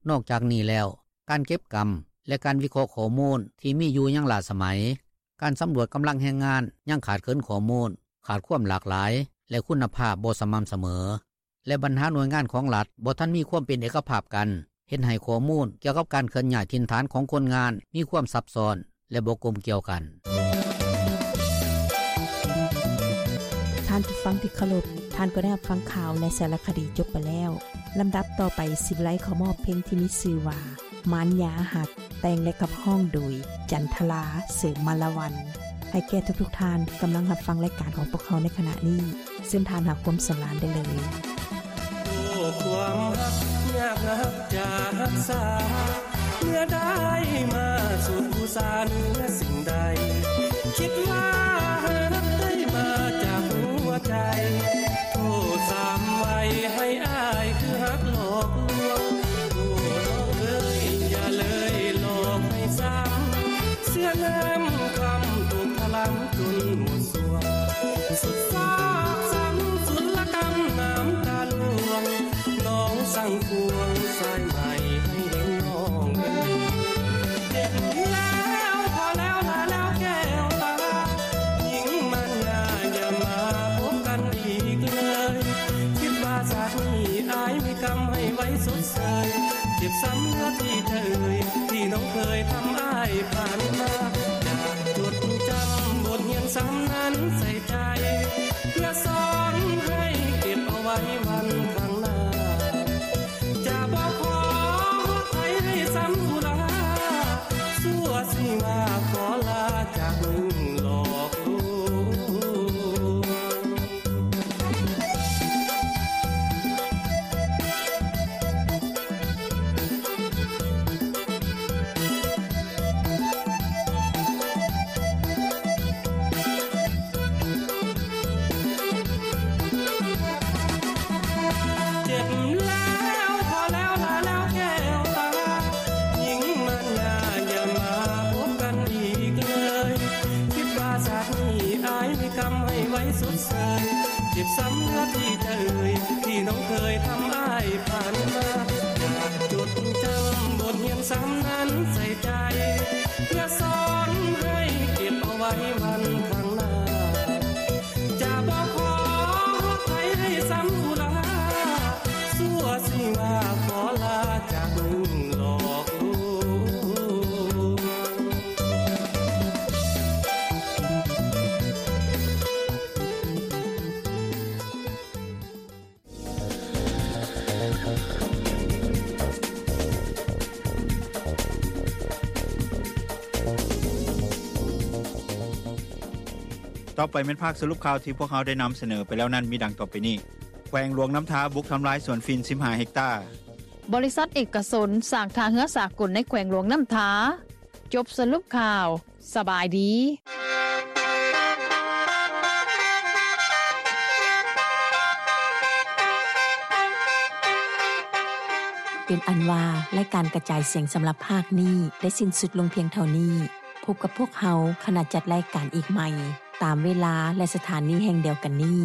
ນອກຈາກນີ້ແລ້ວ, ການເກັບກຳ ແລະ ການວິເຄາະຂໍ້ມູນທີ່ມີຢູ່ຍັງລ້າສະໄໝ, ການສຳຫຼວດກຳລັງແຮງງານຍັງຂາດເຂີນຂໍ້ມູນ, ຂາດຄວາມຫຼາກຫຼາຍ ແລະ ຄຸນນະພາບບໍ່ສະໝ່ຳສະເໝີ ແລະ ບັນຫາໜ່ວຍງານຂອງລັດບໍ່ທັນມີຄວາມເປັນເອກະພາບກັນ ເຮັດໃຫ້ຂໍ້ມູນກ່ຽວກັບການເຄື່ອນຍ້າຍຖິ່ນຖານຂອງຄົນງານມີຄວາມຊັບຊ້ອນ ແລະ ບໍ່ກົມກ່ຽວກັນ. ທ່ານຜູ້ຟັງທີ່ເຄົາລົບ, ທ່ານກໍໄດ້ຮັບຟັງຂ່າວ ແລະ ສາລະຄະດີຈົບໄປແລ້ວ. ລຳດັບຕໍ່ໄປ ສິໄລຂໍມອບເພງທີ່ມີຊື່ວ່າ ມານຢາຮັກ ແຕ່ງ ແລະ ຂັບຮ້ອງໂດຍ ຈັນທະລາ ເສີມມາລະວັນ. ໃຫ້ແກ່ທຸກໆທ່ານກຳລັງຮັບຟັງລາຍການຂອງພວກເຮົາໃນຂະນະນີ້, ເຊີນທ່ານຫາຄວາມສຳລານໄດ້ເລີຍ. ໂອ້ ຄວາມຮັກຍາກນັກຈະຮັກສາ, ເມື່ອໄດ້ມາສຸດອຸສາເໜືອສິ່ງໃດ, ຄິດວ່າຮັກໄດ້ມາຈາກຫົວໃຈ, ໂທດສາມໄວໃຫ້ອ້າຍຄືຮັກຫຼອກລວງ, ໂອ້ ນ້ອງເອີຍ ຢ່າເລີຍຫຼອກໃຫ້ຊ້ຳ, ເສຍນ້ຳຄຳຕົກທະລຳຈົນໝົດ ສວງ ສຸດຊາກຊ້ຳສຸດລະກຳນ້ຳຕາລ່ວງ, ນ້ອງສັ່ງຄວງສາຍໃໝໃຫ້ເຫັນນ້ອງເອີຍ. ເຈັບແລ້ວພໍແລ້ວລະແລ້ວແກ້ວຕາ, ຍິງມານຍາຢ່າມາພົບກັນອີກເລີຍ, ຄິດວ່າຊາດນີ້ອ້າຍມີກຳໃຫ້ໄວຊົດເຊີຍ, ເຈັບຊ້ຳເຫຼືອທີ່ໃຈເອີຍ ທີ່ນ້ອງເຄີຍທຳອ້າຍຜ່ານມາ, ຢາກຈົດຈຳບົດຮຽນຊ້ຳນັ້ນໃສ່ ໃຈ ເພື່ອສອນໃຫ້ເກັບເອົາໄວ້ວັນຂ້າງໜ້າ, ຈະບໍ່ຂໍໃຜໃຫ້ຊ້ຳອຸລາ, ຊົ່ວຊິວ່າຂໍລາຈາກມຶງຫຼອກລວງ. ເຈັບແລ້ວພໍແລ້ວລະແລ້ວແກ້ວຕາ, ຍິງມານຍາຢ່າມາພົບກັນອີກເລີຍ, ຄິດວ່າຊາດນີ້ອ້າຍມີກຳໃຫ້ໄວຊົດເຊີຍ, ເຈັບຊ້ຳເຫຼືອທີ່ໃຈເອີຍ ທີ່ນ້ອງເຄີຍທຳອ້າຍຜ່ານມາ, ຢາກຈົດຈຳບົດຮຽນຊ້ຳນັ້ນໃສ່ໃຈ, ເພື່ອສອນໃຫ້ເກັບເອົາໄວ້ວັນຂ້າງໜ້າ, ຈະບໍ່ຂໍໃຜໃຫ້ຊ້ຳອຸລາ, ຊົ່ວຊິວ່າຂໍລາຈາກມຶງຫຼອກລວງ. ຕໍ່ໄປແມ່ນພາກສະຫຼຸບຂ່າວທີ່ພວກເຮົາໄດ້ນຳສະເໜີໄປແລ້ວນັ້ນ ມີດັ່ງຕໍ່ໄປນີ້: ແຂວງຫຼວງນ້ຳທາບຸກທຳລາຍສວນຝິ່ນສິບຫ້າເຮັກຕາ. ບໍລິສັດເອກະຊົນສ້າງທ່າເຮືອສາກົນໃນແຂວງຫຼວງນ້ຳທາ. ຈົບສະຫຼຸບຂ່າວ. ສະບາຍດີ. ເປັນອັນວ່າ ລາຍການກະຈາຍສຽງສຳລັບພາກນີ້ໄດ້ສິ້ນສຸດລົງພຽງເທົ່ານີ້. ພົບກັບພວກເຮົາ ຂະນະຈັດລາຍການອີກໃໝ່ ຕາມເວລາ ແລະ ສະຖານີແຫ່ງດຽວກັນນີ້.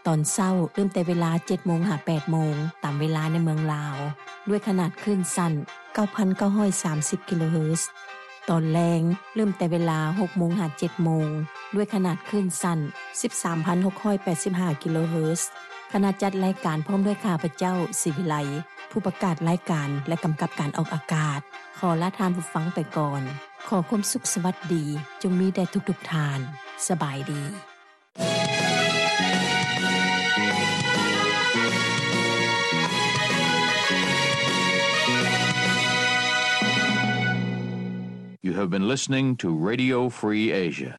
ຕອນເຊົ້າເລີ່ມແຕ່ເວລາເຈັດໂມງຫາແປດໂມງ ຕາມເວລາໃນເມືອງລາວ ດ້ວຍຂະໜາດຄື້ນສັ້ນເກົ້າພັນເກົ້າຮ້ອຍສາມສິບກິໂລເຮີດ. ຕອນແລງເລີ່ມແຕ່ເວລາຫົກໂມງຫາເຈັດໂມງ ດ້ວຍຂະໜາດຄື້ນສັ້ນສິບສາມພັນຫົກຮ້ອຍແປດສິບຫ້າກິໂລເຮີດ. ຄະນະຈັດລາຍການພ້ອມດ້ວຍຂ້າພະເຈົ້າ ສີວິໄລ ຜູ້ປະກາດລາຍການ ແລະ ກຳກັບການອອກອາກາດ ຂໍລາທ່ານຜູ້ຟັງໄປກ່ອນ. ຂໍຄວາມສຸກສະຫວັດດີຈົ່ງມີແດ່ທຸກໆທ່ານ. ສະບາຍດີ. You have been listening to Radio Free Asia.